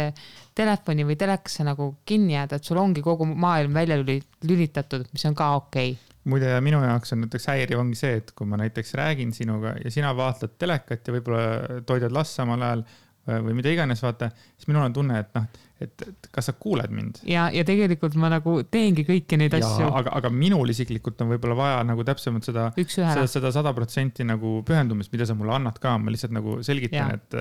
telefoni või telekasse nagu kinni jääda, et sul ongi kogu maailm välja lülitatud, mis on ka okei. Muide, minu jaoks on näiteks häiriv ongi see, et kui ma näiteks räägin sinuga ja sina vaatled telekat ja võib-olla toidad last samal ajal, või mida iganes, vaata, siis minul on tunne, et noh, et kas sa kuuled mind. Ja tegelikult ma nagu teengi kõiki neid asju. Aga minul isiklikult on võib-olla vaja nagu täpsemalt seda 100% nagu pühendumist, mida sa mulle annad ka. Ma lihtsalt nagu selgitan, et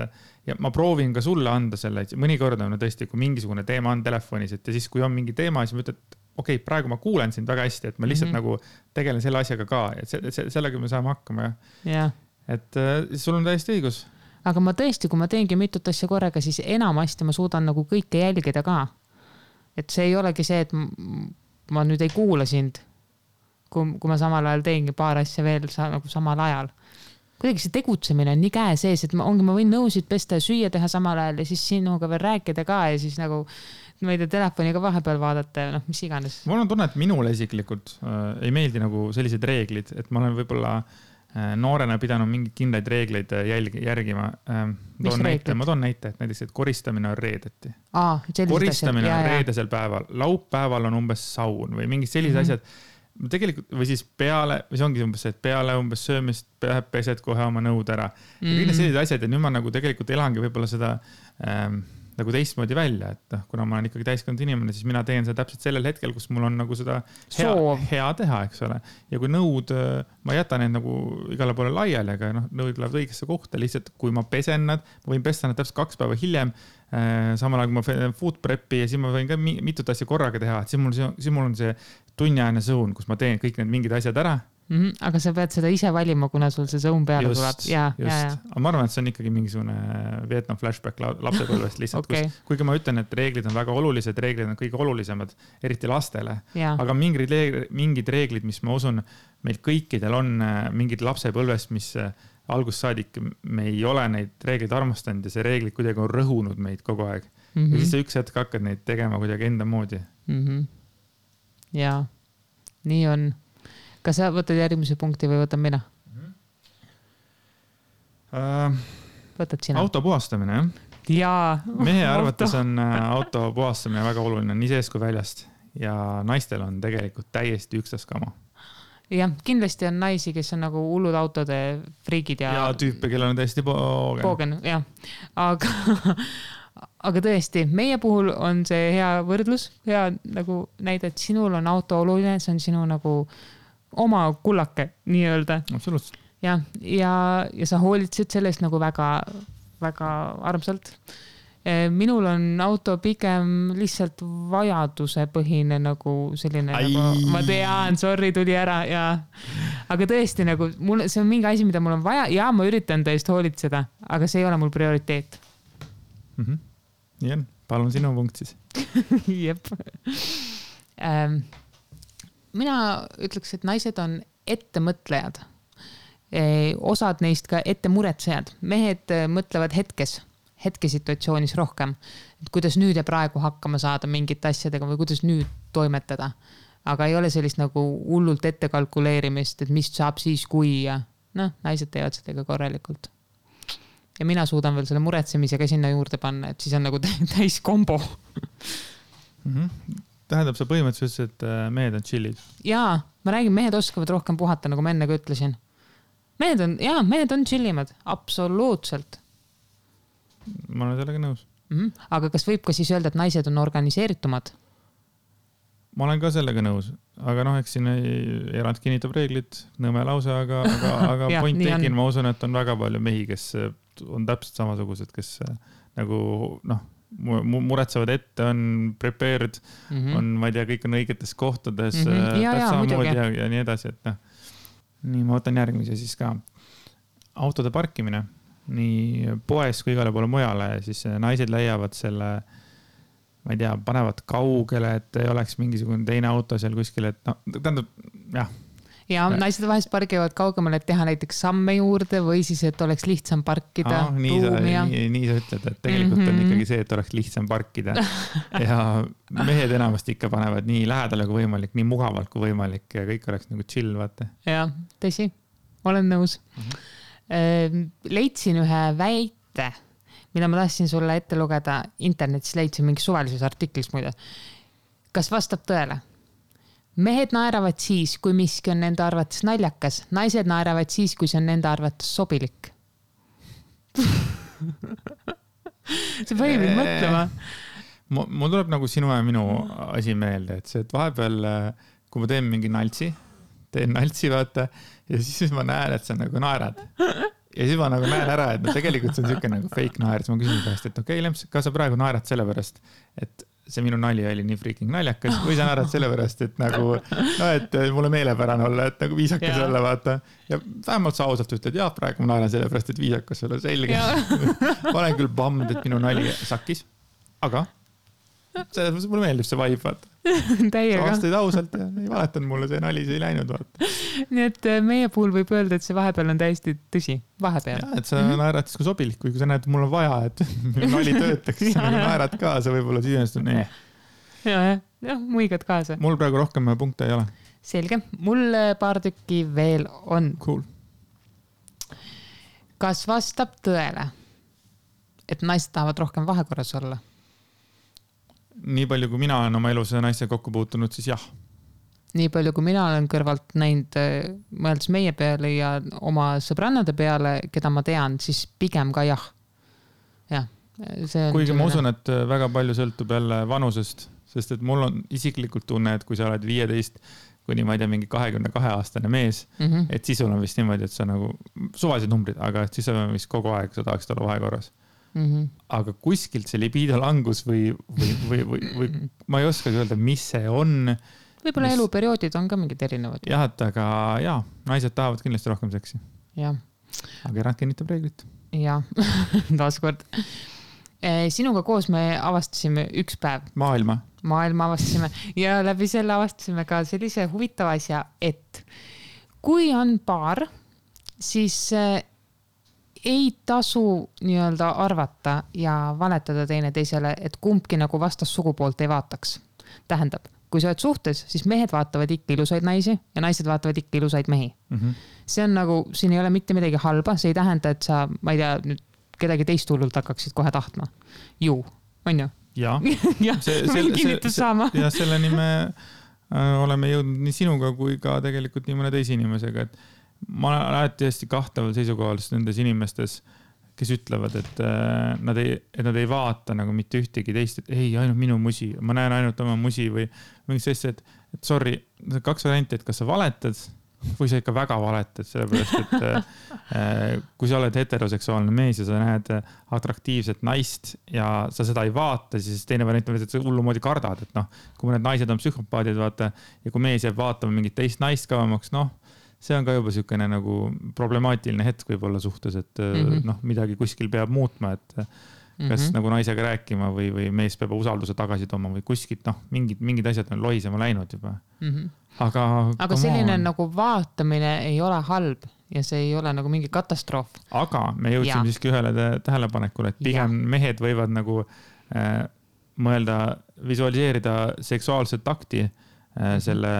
ja ma proovin ka sulle anda selle, mõnikord on tõesti, kui mingisugune teema on telefonis, et ja siis, kui on mingi teema, siis ma ütlen, et okei, praegu ma kuulen sind väga hästi, et ma lihtsalt nagu tegelen selle asjaga ka, et sellega me saame hakkama. Ja. Et sul on täiesti õigus. Aga ma tõesti, kui ma teengi mitut asja korraga, siis enamasti ma suudan nagu kõike jälgida ka. Et see ei olegi see, et ma nüüd ei kuula sind, kui ma samal ajal teengi paar asja veel nagu samal ajal. Kuidagi see tegutsemine on nii käe sees, et ma võin nõusid pesta ja süüa teha samal ajal ja siis sinuga veel rääkida ka ja siis nagu ma ei tea, telefoniga vahepeal vaadata ja noh, mis iganes. Mul on tunne, et minule isiklikult ei meeldi nagu sellised reeglid, et ma olen võib-olla noorena pidanud mingeid kindlaid reegleid järgima. Ma toon näite, et näiteks, et koristamine on reedeti. Koristamine on reedesel päeval. Laupäeval on umbes saun või mingid sellised asjad. Tegelikult, või siis peale, või see ongi umbes see, et peale umbes söömist pesed kohe oma nõud ära. Ja kõik need sellised asjad ja nüüd ma nagu tegelikult elangi võib-olla seda nagu teistmoodi välja, et kuna ma olen ikkagi täiskond inimene, siis mina teen seda täpselt sellel hetkel, kus mul on nagu seda hea teha, eks ole. Ja kui nõud, ma jätan need nagu igale poole laiali, aga nõud lähevad õigesse kohta, lihtsalt kui ma pesen nad, ma võin pesta nad täpselt 2 päeva hiljem, samal ajal kui ma food prep'i ja siis ma võin ka mitut asja korraga teha, et siis mul on see tunniajane sõun, kus ma teen kõik need mingid asjad ära. Aga sa pead seda ise valima, kuna sul see sõun peale tuleb. Aga ma arvan, et see on ikkagi mingisugune Vietnam flashback lapsepõlvest lihtsalt, kuigi ma ütlen, et reeglid on väga olulised, reeglid on kõige olulisemad, eriti lastele. Aga mingid reeglid, mis ma usun, meil kõikidel on mingid lapsepõlvest, mis algussaadik me ei ole neid reeglid armastanud ja see reeglid kuidagi on rõhunud meid kogu aeg. Ja siis sa üks hetk hakkad neid tegema kuidagi enda moodi. Jaa, nii on. Kas sa võtad järgmise punkti või võtan mina? Võtad sina. Auto puhastamine, jah? Jaa. Mehe arvates on auto puhastamine väga oluline, nii sees kui väljast. Ja naistel on tegelikult täiesti ükstaskama. Jah, kindlasti on naisi, kes on nagu hullud autode friigid ja tüüpe, kellel on täiesti poogen, jah. Aga tõesti, meie puhul on see hea võrdlus, hea nagu näide, et sinul on auto oluline, see on sinu nagu oma kullake, nii öelda. Absoluutselt. Ja sa hoolitsid sellest nagu väga, väga armsalt. Minul on auto pigem lihtsalt vajaduse põhine nagu selline, nagu, ma tean, sorry, tuli ära ja, aga tõesti nagu, see on mingi asi, mida mul on vaja ja ma üritan tõest hoolitseda, aga see ei ole mul prioriteet. Nii on, palun sinu punkt siis. Jep. Mina ütleks, et naised on ettemõtlejad. Osad neist ka ettemuretsejad. Mehed mõtlevad hetkesituatsioonis rohkem, et kuidas nüüd ja praegu hakkama saada mingite asjadega või kuidas nüüd toimetada. Aga ei ole sellist nagu hullult ette kalkuleerimist, et mis saab siis, kui ja naised teevad seda ka korralikult. Ja mina suudan veel selle muretsemisega sinna juurde panna, et siis on nagu täis kombo. Tähendab, sa põhimõtteliselt, et mehed on chillid. Jaa, ma räägin, mehed oskavad rohkem puhata, nagu ma enne ka ütlesin. Mehed on chillimad, absoluutselt. Ma olen sellega nõus. Aga kas võib ka siis öelda, et naised on organiseeritumad? Ma olen ka sellega nõus, aga eks siin erand kinnitab reeglid, nõme lause, aga ja, point tegin, ma usun, et on väga palju mehi, kes on täpselt samasugused, kes nagu muretsevad ette, on prepared, on, ma ei tea, kõik on õigetes kohtades, samamoodi ja nii edasi, et nii, ma võtan järgmise siis ka. Autode parkimine, nii poes kui igale poole mujale, siis naised leiavad selle, ma ei tea, panevad kaugele, et ei oleks mingisugune teine auto seal kuskil, et tähendab, jah. Ja naised vahest pargivad kaugemale, et teha näiteks samme juurde või siis, et oleks lihtsam parkida. Nii sa ütled, et tegelikult on ikkagi see, et oleks lihtsam parkida. Ja mehed enamasti ikka panevad nii lähedale kui võimalik, nii mugavalt kui võimalik ja kõik oleks nagu chill, vaata. Ja, tõsi, olen nõus. Leidsin ühe väite, mida ma tahtsin sulle ette lugeda internetis, leidsin mingi suvalises artiklis muide. Kas vastab tõele? Mehed naeravad siis, kui miski on nende arvates naljakas. Naised naeravad siis, kui see on nende arvates sobilik. see pani mind mõtlema. Mul tuleb nagu sinu ja minu asi meelde, et see, et vahepeal, kui ma teen mingi naltsi, vaata, ja siis ma näen, et sa nagu naerad. Ja siis ma nagu näen ära, et no tegelikult see on siuke nagu fake naer, siis ma küsin pärast, et okei, Lemps, kas sa praegu naerad sellepärast, et see minu nali oli nii freaking naljakas või sa naerad sellepärast, et nagu, no, et mulle meelepärane olla, et nagu viisakas olla, vaata. Ja vähemalt sa ausalt ütled, jah, praegu ma naeran sellepärast, et viisakas olla selge. Ma olen küll bummed, et minu nali sakkis, aga mulle meeldib see vibe, vaata. Täiega. Sa vastasid ausalt ja ei valetanud mulle, see nali see ei läinud, vaata. Nii et meie puhul võib öelda, et see vahepeal on täiesti tõsi. Vahepeal. Ja, et sa naerad siis kui sobilik, kui sa näed, et mul on vaja, et nali töötaks, siis sa nagu naerad kaasa, võib-olla siis on jah, muigad kaasa. Mul praegu rohkem punkte ei ole. Selge. Mul paar tükki veel on. Cool. Kas vastab tõele, et naised tahavad rohkem vahekorras olla? Nii palju, kui mina olen oma elus naiste kokku puutunud, siis jah. Nii palju, kui mina olen kõrvalt näinud, mõeldes meie peale ja oma sõbrannade peale, keda ma tean, siis pigem ka jah. Jah. Kuigi ma usun, et väga palju sõltub jälle vanusest, sest et mul on isiklikult tunne, et kui sa oled 15 kuni ma ei tea, mingi 22-aastane mees, et siis sul on vist niimoodi, et sa nagu suvalised numbrid, aga siis sa vist kogu aeg sa tahaksid olla vahekorras. Aga kuskilt see libido langus või ma ei oskagi öelda, mis see on. Võib-olla eluperioodid on ka mingid erinevad. Jah, aga naised tahavad kindlasti rohkem seksi. Jah. Aga erand kinnitab reeglit. Jah, taaskord. Sinuga koos me avastasime üks päev. Maailma avastasime ja läbi selle avastasime ka sellise huvitava asja, et kui on paar, siis ei tasu nii-öelda arvata ja valetada teine teisele, et kumbki nagu vastas sugupoolt ei vaataks. Tähendab, kui sa oled suhtes, siis mehed vaatavad ikka ilusaid naisi ja naised vaatavad ikka ilusaid mehi. See on nagu, siin ei ole mitte midagi halba, see ei tähenda, et sa, ma ei tea, nüüd kedagi teist hullult hakkaksid kohe tahtma. Ju, on ju? Ja, võin kinnitus saama. Ja selleni me oleme jõudnud nii sinuga kui ka tegelikult nii mõne teise inimesega, et ma olen alati hästi kahtaval seisukohal nendes inimestes, kes ütlevad, et nad ei vaata nagu mitte ühtegi teist, et ei, ainult minu musi, ma näen ainult oma musi või mingi sellist, et sorry, kaks varianti, et kas sa valetad või sa ikka väga valetad, sellepärast, et kui sa oled heteroseksuaalne mees ja sa näed atraktiivset naist ja sa seda ei vaata, siis teine variant on, et sa hullumoodi kardad, et noh, kui need naised on psühhopaadid, vaata, ja kui mees jääb vaatama mingit teist naist kavamaks, noh, see on ka juba siukene nagu problemaatiline hetk võib-olla suhtes, et noh, midagi kuskil peab muutma, et kas nagu naisega rääkima või mees peab usalduse tagasi tooma või kuskilt, noh, mingid asjad on lohisema läinud juba. Aga selline nagu vaatamine ei ole halb ja see ei ole nagu mingi katastroof. Aga me jõudsime siiski ühele tähelepanekule, et pigem mehed võivad nagu mõelda, visualiseerida seksuaalset akti selle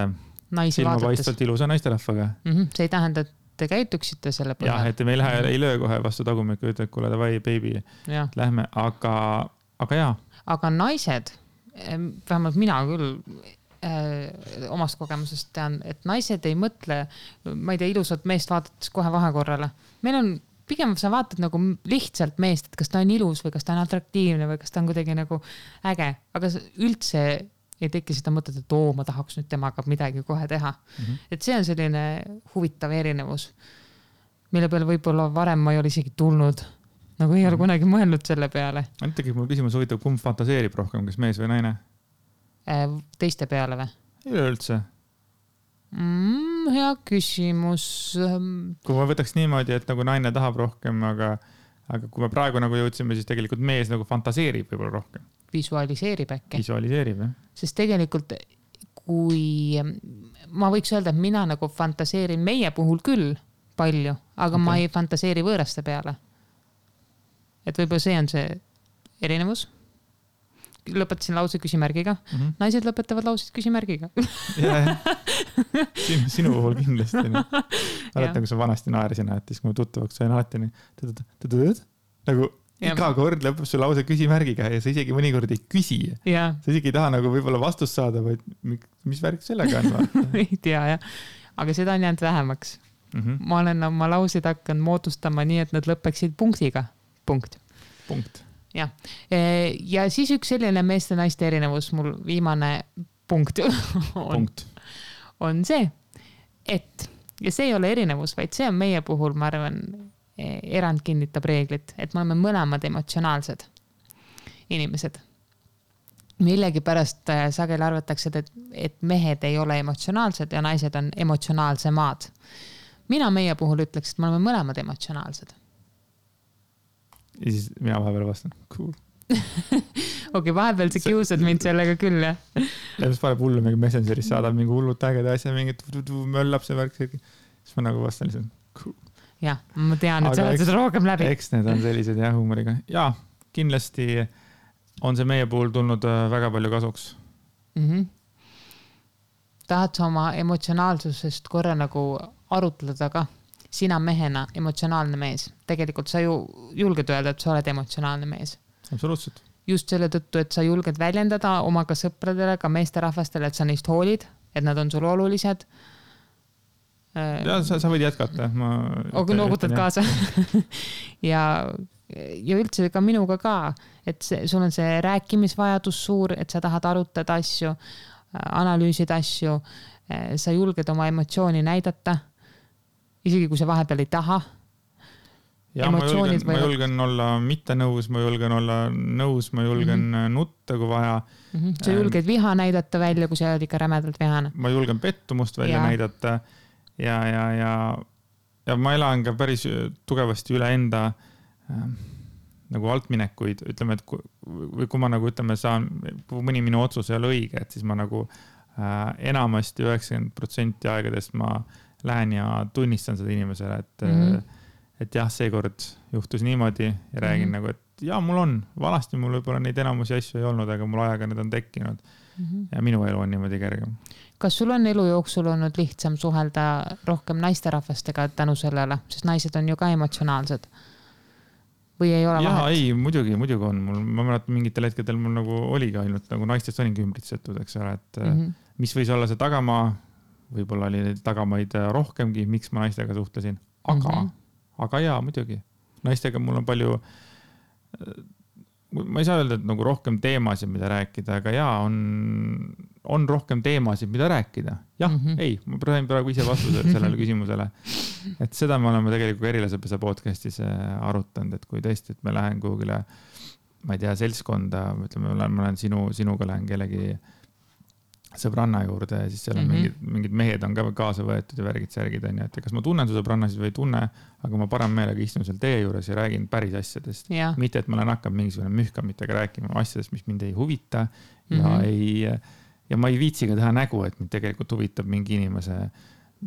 silmapaistvalt ilusa naisterahvaga. See ei tähenda, et te käituksite selle põhjal. Jah, et me ei löö kohe vastu tagumikku, ütled, kuule, davai, baby, lähme, aga jaa. Aga naised, vähemalt mina küll omast kogemusest tean, et naised ei mõtle, ma ei tea, ilusat meest vaadates kohe vahekorrale. Meil on, pigem sa vaatad nagu lihtsalt meest, et kas ta on ilus või kas ta on atraktiivne või kas ta on kuidagi nagu äge, aga üldse ei teki seda mõtet, et ma tahaks nüüd temaga midagi kohe teha. Et see on selline huvitav erinevus, mille peale võib-olla varem ma ei ole isegi tulnud. Nagu ei ole kunagi mõelnud selle peale. Tegelikult mul küsimus huvitav, kumb fantaseerib rohkem, kas mees või naine? Teiste peale või? Ei üldse. Hea küsimus. Kui ma võtaks niimoodi, et nagu naine tahab rohkem, aga kui me praegu nagu jõudsime, siis tegelikult mees nagu fantaseerib võib-olla rohkem. Visualiseerib äkki. Visualiseerib, jah. Sest tegelikult, kui ma võiks öelda, et mina nagu fantaseerin meie puhul küll palju, aga ma ei fantaseeri võõraste peale. Et võib-olla see on see erinevus. Lõpetasin lause küsimärgiga. Naised lõpetavad lausid küsimärgiga. Sinu puhul kindlasti. Mäletan, kui sa vanasti naerisin, et siis kui ma tuttavaks sain alati nagu iga kord lõpeb su lause küsimärgiga ja sa isegi mõnikord ei küsi. Sa isegi ei taha nagu võib-olla vastust saada, vaid mis värk sellega on? Ei tea, jah. Aga seda on jäänud vähemaks. Ma olen oma lausid hakanud moodustama nii, et nad lõpeksid punktiga. Punkt. jah. Ja siis üks selline meeste-naiste erinevus, mul viimane punkt on see, et, ja see ei ole erinevus, vaid see on meie puhul, ma arvan, erand kinnitab reeglit, et me oleme mõlemad emotsionaalsed inimesed. Millegi pärast sageli arvatakse, et mehed ei ole emotsionaalsed ja naised on emotsionaalsemad. Mina meie puhul ütleks, et me oleme mõlemad emotsionaalsed. Ja siis mina vahepeal vastan, cool. Okei, vahepeal sa kiusad mind sellega küll, jah? Ja mis paneb hullu mingi Messengeris, saadab mingi hullud ägeda asja, mingi möllab see värk. Siis ma nagu vastan lihtsalt, cool. Jah, ma tean, et sa oled seda rohkem läbi. Eks need on sellised jah, huumoriga. Ja, kindlasti on see meie puhul tulnud väga palju kasuks. Tahad sa oma emotsionaalsusest korra nagu arutleda ka? Sina mehena emotsionaalne mees. Tegelikult sa ju julged öelda, et sa oled emotsionaalne mees. Absoluutselt. Just selle tõttu, et sa julged väljendada oma ka sõpradele, ka meesterahvastele, et sa neist hoolid, et nad on sul olulised. Ja, sa võid jätkata. Aga noogutad kaasa. ja üldse ka minuga ka, et sul on see rääkimisvajadus suur, et sa tahad arutada asju, analüüsida asju, sa julged oma emotsiooni näidata, isegi kui sa vahepeal ei taha. Ja ma julgen olla mitte nõus, ma julgen olla nõus, ma julgen nutta, kui vaja. Sa julged viha näidata välja, kui sa oled ikka rämedalt vihane. Ma julgen pettumust välja näidata ja ma elan ka päris tugevasti üle enda nagu altminekuid, ütleme, et kui ma nagu ütleme, kui mõni minu otsus ei ole õige, et siis ma nagu enamasti 90% aegadest ma lähen ja tunnistan seda inimesele, et jah, seekord juhtus niimoodi ja räägin nagu, et ja mul on, vanasti mul võib-olla neid enamusi asju ei olnud, aga mul ajaga need on tekkinud ja minu elu on niimoodi kergem. Kas sul on elu jooksul olnud lihtsam suhelda rohkem naisterahvastega tänu sellele, sest naised on ju ka emotsionaalsed? Või ei ole vahet? Ei, muidugi on. Ma mäletan mingitel hetkedel mul nagu oligi ainult nagu naistest olingi ümbritsetud, eks ole, et mis võis olla see tagamaa, võib-olla oli tagamaid rohkemgi, miks ma naistega suhtlesin, aga jaa, muidugi. Naistega mul on palju, ma ei saa öelda, et nagu rohkem teemasid, mida rääkida, aga jaa, on rohkem teemasid, mida rääkida. Jah, ei, ma praegu ise vastuse sellele küsimusele. Et seda me oleme tegelikult Erilasepesa podcastis arutanud, et kui tõesti, et me lähen kuhugile, ma ei tea, seltskonda, ütleme, ma lähen sinuga lähen kellegi sõbranna juurde ja siis seal on mingid mehed on ka kaasa võetud ja värgid särgid on, et kas ma tunnen su sõbrannasid või ei tunne, aga ma parem meelega istun seal teie juures ja räägin päris asjadest. Mitte, et ma olen hakkab mingisugune mühkamitega rääkima asjadest, mis mind ei huvita ja ma ei viitsiga teha nägu, et mind tegelikult huvitab mingi inimese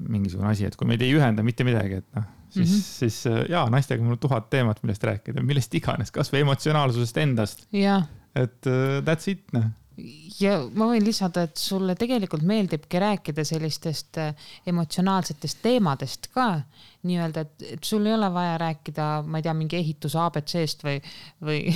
mingisugune asi, et kui meid ei ühenda mitte midagi, et siis jaa, naistega mul 1000 teemat, millest rääkida, millest iganes, kas või emotsionaalsusest endast. Et that's it, Ja ma võin lisada, et sulle tegelikult meeldibki rääkida sellistest emotsionaalsetest teemadest ka, nii-öelda, et sul ei ole vaja rääkida, ma ei tea, mingi ehituse ABC-st või...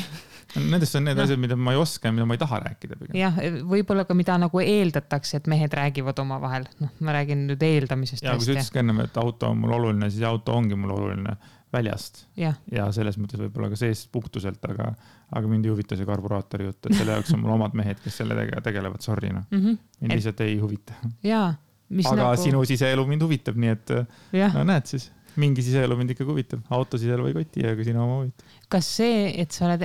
Nendest on need asjad, mida ma ei oska ja mida ma ei taha rääkida. Jah, võib-olla ka mida nagu eeldatakse, et mehed räägivad oma vahel. Ma räägin nüüd eeldamisest. Ja kui sa ütlesid enne, et auto on mul oluline, siis auto ongi mul oluline väljast. Ja selles mõttes võib-olla ka seest puhtuselt, aga mind ei huvita see karburaatori jutt, et selle jaoks on mul omad mehed, kes sellega tegelevad, sorry. Mind lihtsalt ei huvita. Aga sinu siseelu mind huvitab, nii et näed siis, mingi siseelu mind ikka huvitab. Auto siseelu ei koti, aga sinu oma huvitab. Kas see, et sa oled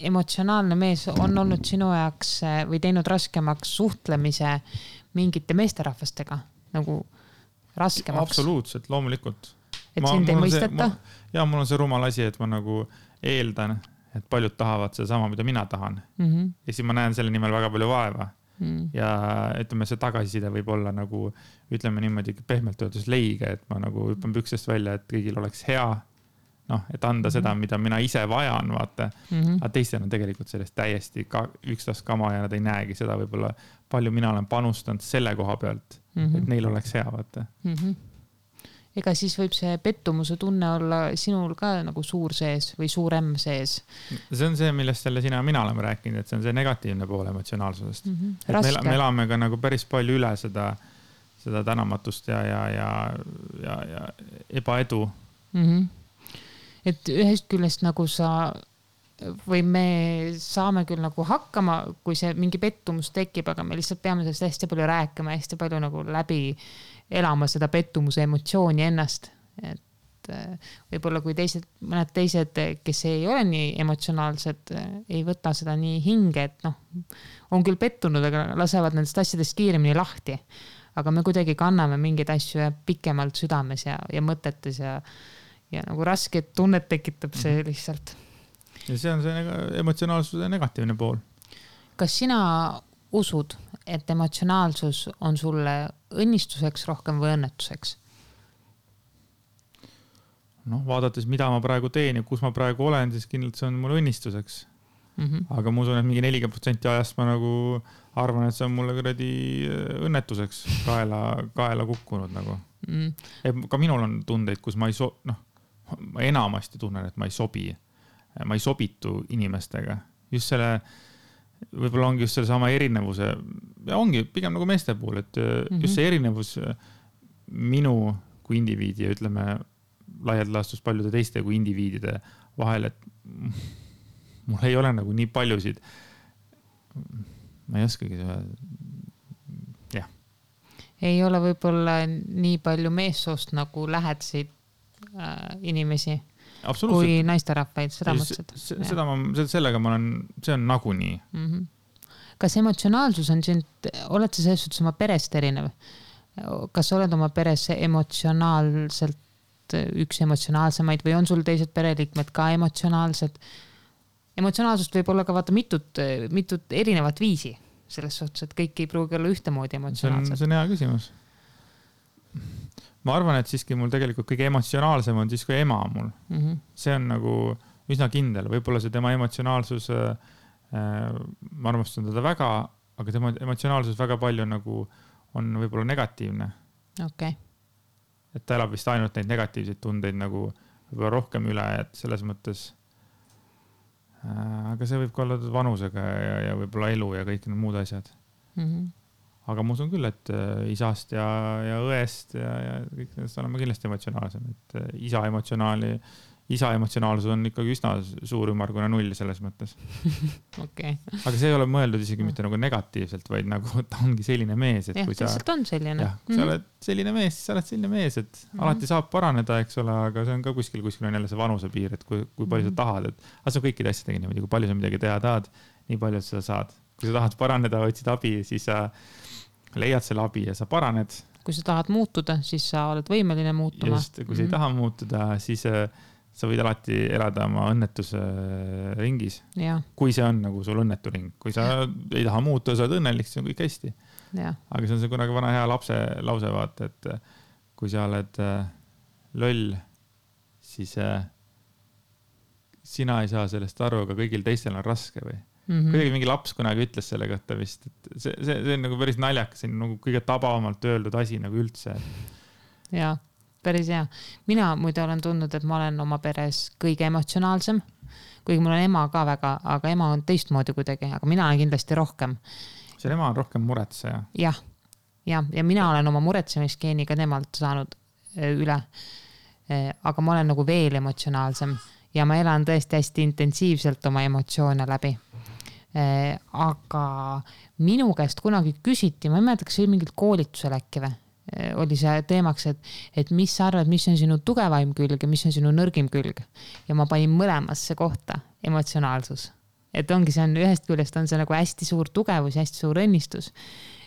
emotsionaalne mees, on olnud sinu jaoks või teinud raskemaks suhtlemise mingite meesterahvastega? Nagu raskemaks? Absoluutselt, loomulikult. Et sind ei mõisteta? Ja mul on see rumal asi, et ma nagu eeldan, et paljud tahavad seda sama, mida mina tahan. Ja siis ma näen selle nimel väga palju vaeva. Ja ütleme, see tagasiside võib olla nagu, ütleme niimoodi pehmelt öeldes leige, et ma nagu hüppan püksest välja, et kõigil oleks hea, et anda seda, mida mina ise vajan, vaata. Aga teistel on tegelikult sellest täiesti ükstask kama ja nad ei näegi seda võib-olla palju mina olen panustanud selle koha pealt, et neil oleks hea, vaata. Ega siis võib see pettumuse tunne olla sinul ka nagu suur sees või suurem sees? See on see, millest selle sina ja mina oleme rääkinud, et see on see negatiivne pool emotsionaalsusest. Me elame ka nagu päris palju üle seda tänamatust ja ebaedu. Et ühest küljest nagu sa või me saame küll nagu hakkama, kui see mingi pettumus tekib, aga me lihtsalt peame sellest hästi palju rääkima, hästi palju nagu läbi elama seda pettumuse emotsiooni ennast. Et võib-olla kui mõned teised, kes ei ole nii emotsionaalsed, ei võta seda nii hinge, et on küll pettunud, aga lasevad nendest asjadest kiiremini lahti. Aga me kuidagi kanname mingeid asju pikemalt südames ja mõtetes ja nagu rasket tunnet tekitab see lihtsalt. Ja see on see emotsionaalsuse negatiivne pool. Kas sina usud, et emotsionaalsus on sulle õnnistuseks rohkem või õnnetuseks? Vaadates, mida ma praegu teen ja kus ma praegu olen, siis kindlalt see on mul õnnistuseks. Aga ma usun, et mingi 40% ajast ma nagu arvan, et see on mulle kuradi õnnetuseks kaela kukkunud nagu. Ka minul on tundeid, kus ma enamasti tunnen, et ma ei sobitu inimestega. Just selle, võib-olla ongi just selle sama erinevuse, ja ongi pigem nagu meeste puhul, et just see erinevus minu kui indiviidi ja ütleme laialt laastus paljude teiste kui indiviidide vahel, et mul ei ole nagu nii paljusid, ma ei oskagi jah. Ei ole võib-olla nii palju meessoost nagu lähedasid inimesi kui naisterahvaid, seda mõtlesid. Sellega ma olen, see on nagunii. Kas emotsionaalsus on sind, oled sa selles suhtes oma perest erinev? Kas oled oma peres emotsionaalselt üks emotsionaalsemaid või on sul teised pereliikmed ka emotsionaalsed? Emotsionaalsust võib olla ka vaata mitut erinevat viisi selles suhtes, et kõik ei pruugi olla ühtemoodi emotsionaalsed. See on hea küsimus. Ma arvan, et siiski mul tegelikult kõige emotsionaalsem on siis kui ema mul. See on nagu üsna kindel. Võib-olla see tema emotsionaalsus, ma armastan teda väga, aga tema emotsionaalsus väga palju nagu on võib-olla negatiivne. Okei. Et ta elab vist ainult neid negatiivseid tundeid nagu võib-olla rohkem üle, et selles mõttes aga see võib ka olla vanusega ja võib-olla elu ja kõik need muud asjad. Aga ma usun küll, et isast ja õest ja kõik nendest olema kindlasti emotsionaalsem. Et isa emotsionaalsus on ikkagi üsna suur ümmargune null selles mõttes. Okay. Aga see ei ole mõeldud isegi mitte nagu negatiivselt, vaid nagu ta ongi selline mees, et kui sa on selline. Kui sa oled selline mees, siis sa oled selline mees, et alati saab paraneda, eks ole, aga see on ka kuskil on jälle see vanuse piir, et kui palju sa tahad, et see on kõikide asjadega niimoodi, kui palju sa midagi teha tahad, nii palju sa saad. Kui sa tahad paraneda, otsid abi, siis sa leiad selle abi ja sa paraned. Kui sa tahad muutuda, siis sa oled võimeline muutuma. Just, kui sa ei taha muutuda, siis sa võid alati elada oma õnnetuse ringis. Ja. Kui see on nagu sul õnnetu ring. Kui sa ei taha muutuda, sa oled õnnelik, siis on kõik hästi. Ja. Aga see on see kunagi vana hea lapse lause vaata, et kui sa oled loll, siis sina ei saa sellest aru, aga kõigil teistel on raske või. Kuidagi mingi laps kunagi ütles selle kohta vist, et see on nagu päris naljakas, see on nagu kõige tabavamalt öeldud asi nagu üldse. Jaa, päris hea. Mina muide olen tundnud, et ma olen oma peres kõige emotsionaalsem, kuigi mul on ema ka väga, aga ema on teistmoodi kuidagi, aga mina olen kindlasti rohkem. See ema on rohkem muretseja. Ja mina olen oma muretsemisgeeniga temalt saanud üle, aga ma olen nagu veel emotsionaalsem ja ma elan tõesti hästi intensiivselt oma emotsioone läbi. Aga minu käest kunagi küsiti, ma ei mäleta, kas see oli mingil koolitusel äkki või, oli see teemaks, et mis sa arvad, mis on sinu tugevaim külg ja mis on sinu nõrgim külg. Ja ma panin mõlemasse kohta emotsionaalsus. Et ongi see on ühest küljest on see nagu hästi suur tugevus ja hästi suur õnnistus,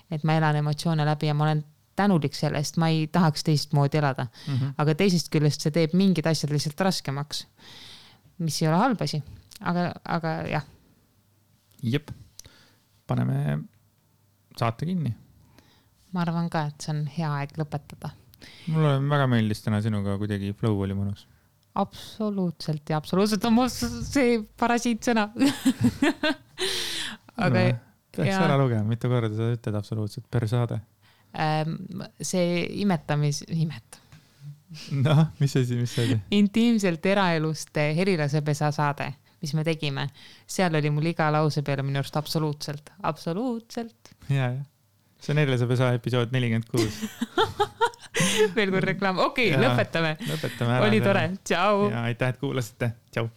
et ma elan emotsioone läbi ja ma olen tänulik sellest, ma ei tahaks teistmoodi elada. Aga teisest küljest see teeb mingid asjad lihtsalt raskemaks, mis ei ole halb asi. Aga jah. Jep, paneme saate kinni. Ma arvan ka, et see on hea aeg lõpetada. Mulle väga meeldis täna sinuga, kuidagi flow oli mõnus. Absoluutselt ja absoluutselt on see parasiitsõna. Aga peaks ära lugema, mitu korda sa ütled absoluutselt per saade. See imet. No, mis see oli? Intiimselt eraelust helilasepesa saade, mis me tegime. Seal oli mul iga lause peale minu arust absoluutselt. Ja. See on helilasepesa episood 46. Veel kord reklaam. Okei, lõpetame. Lõpetame ära. Oli tore. Tšau. Ja aitäh, et kuulasite. Tšau.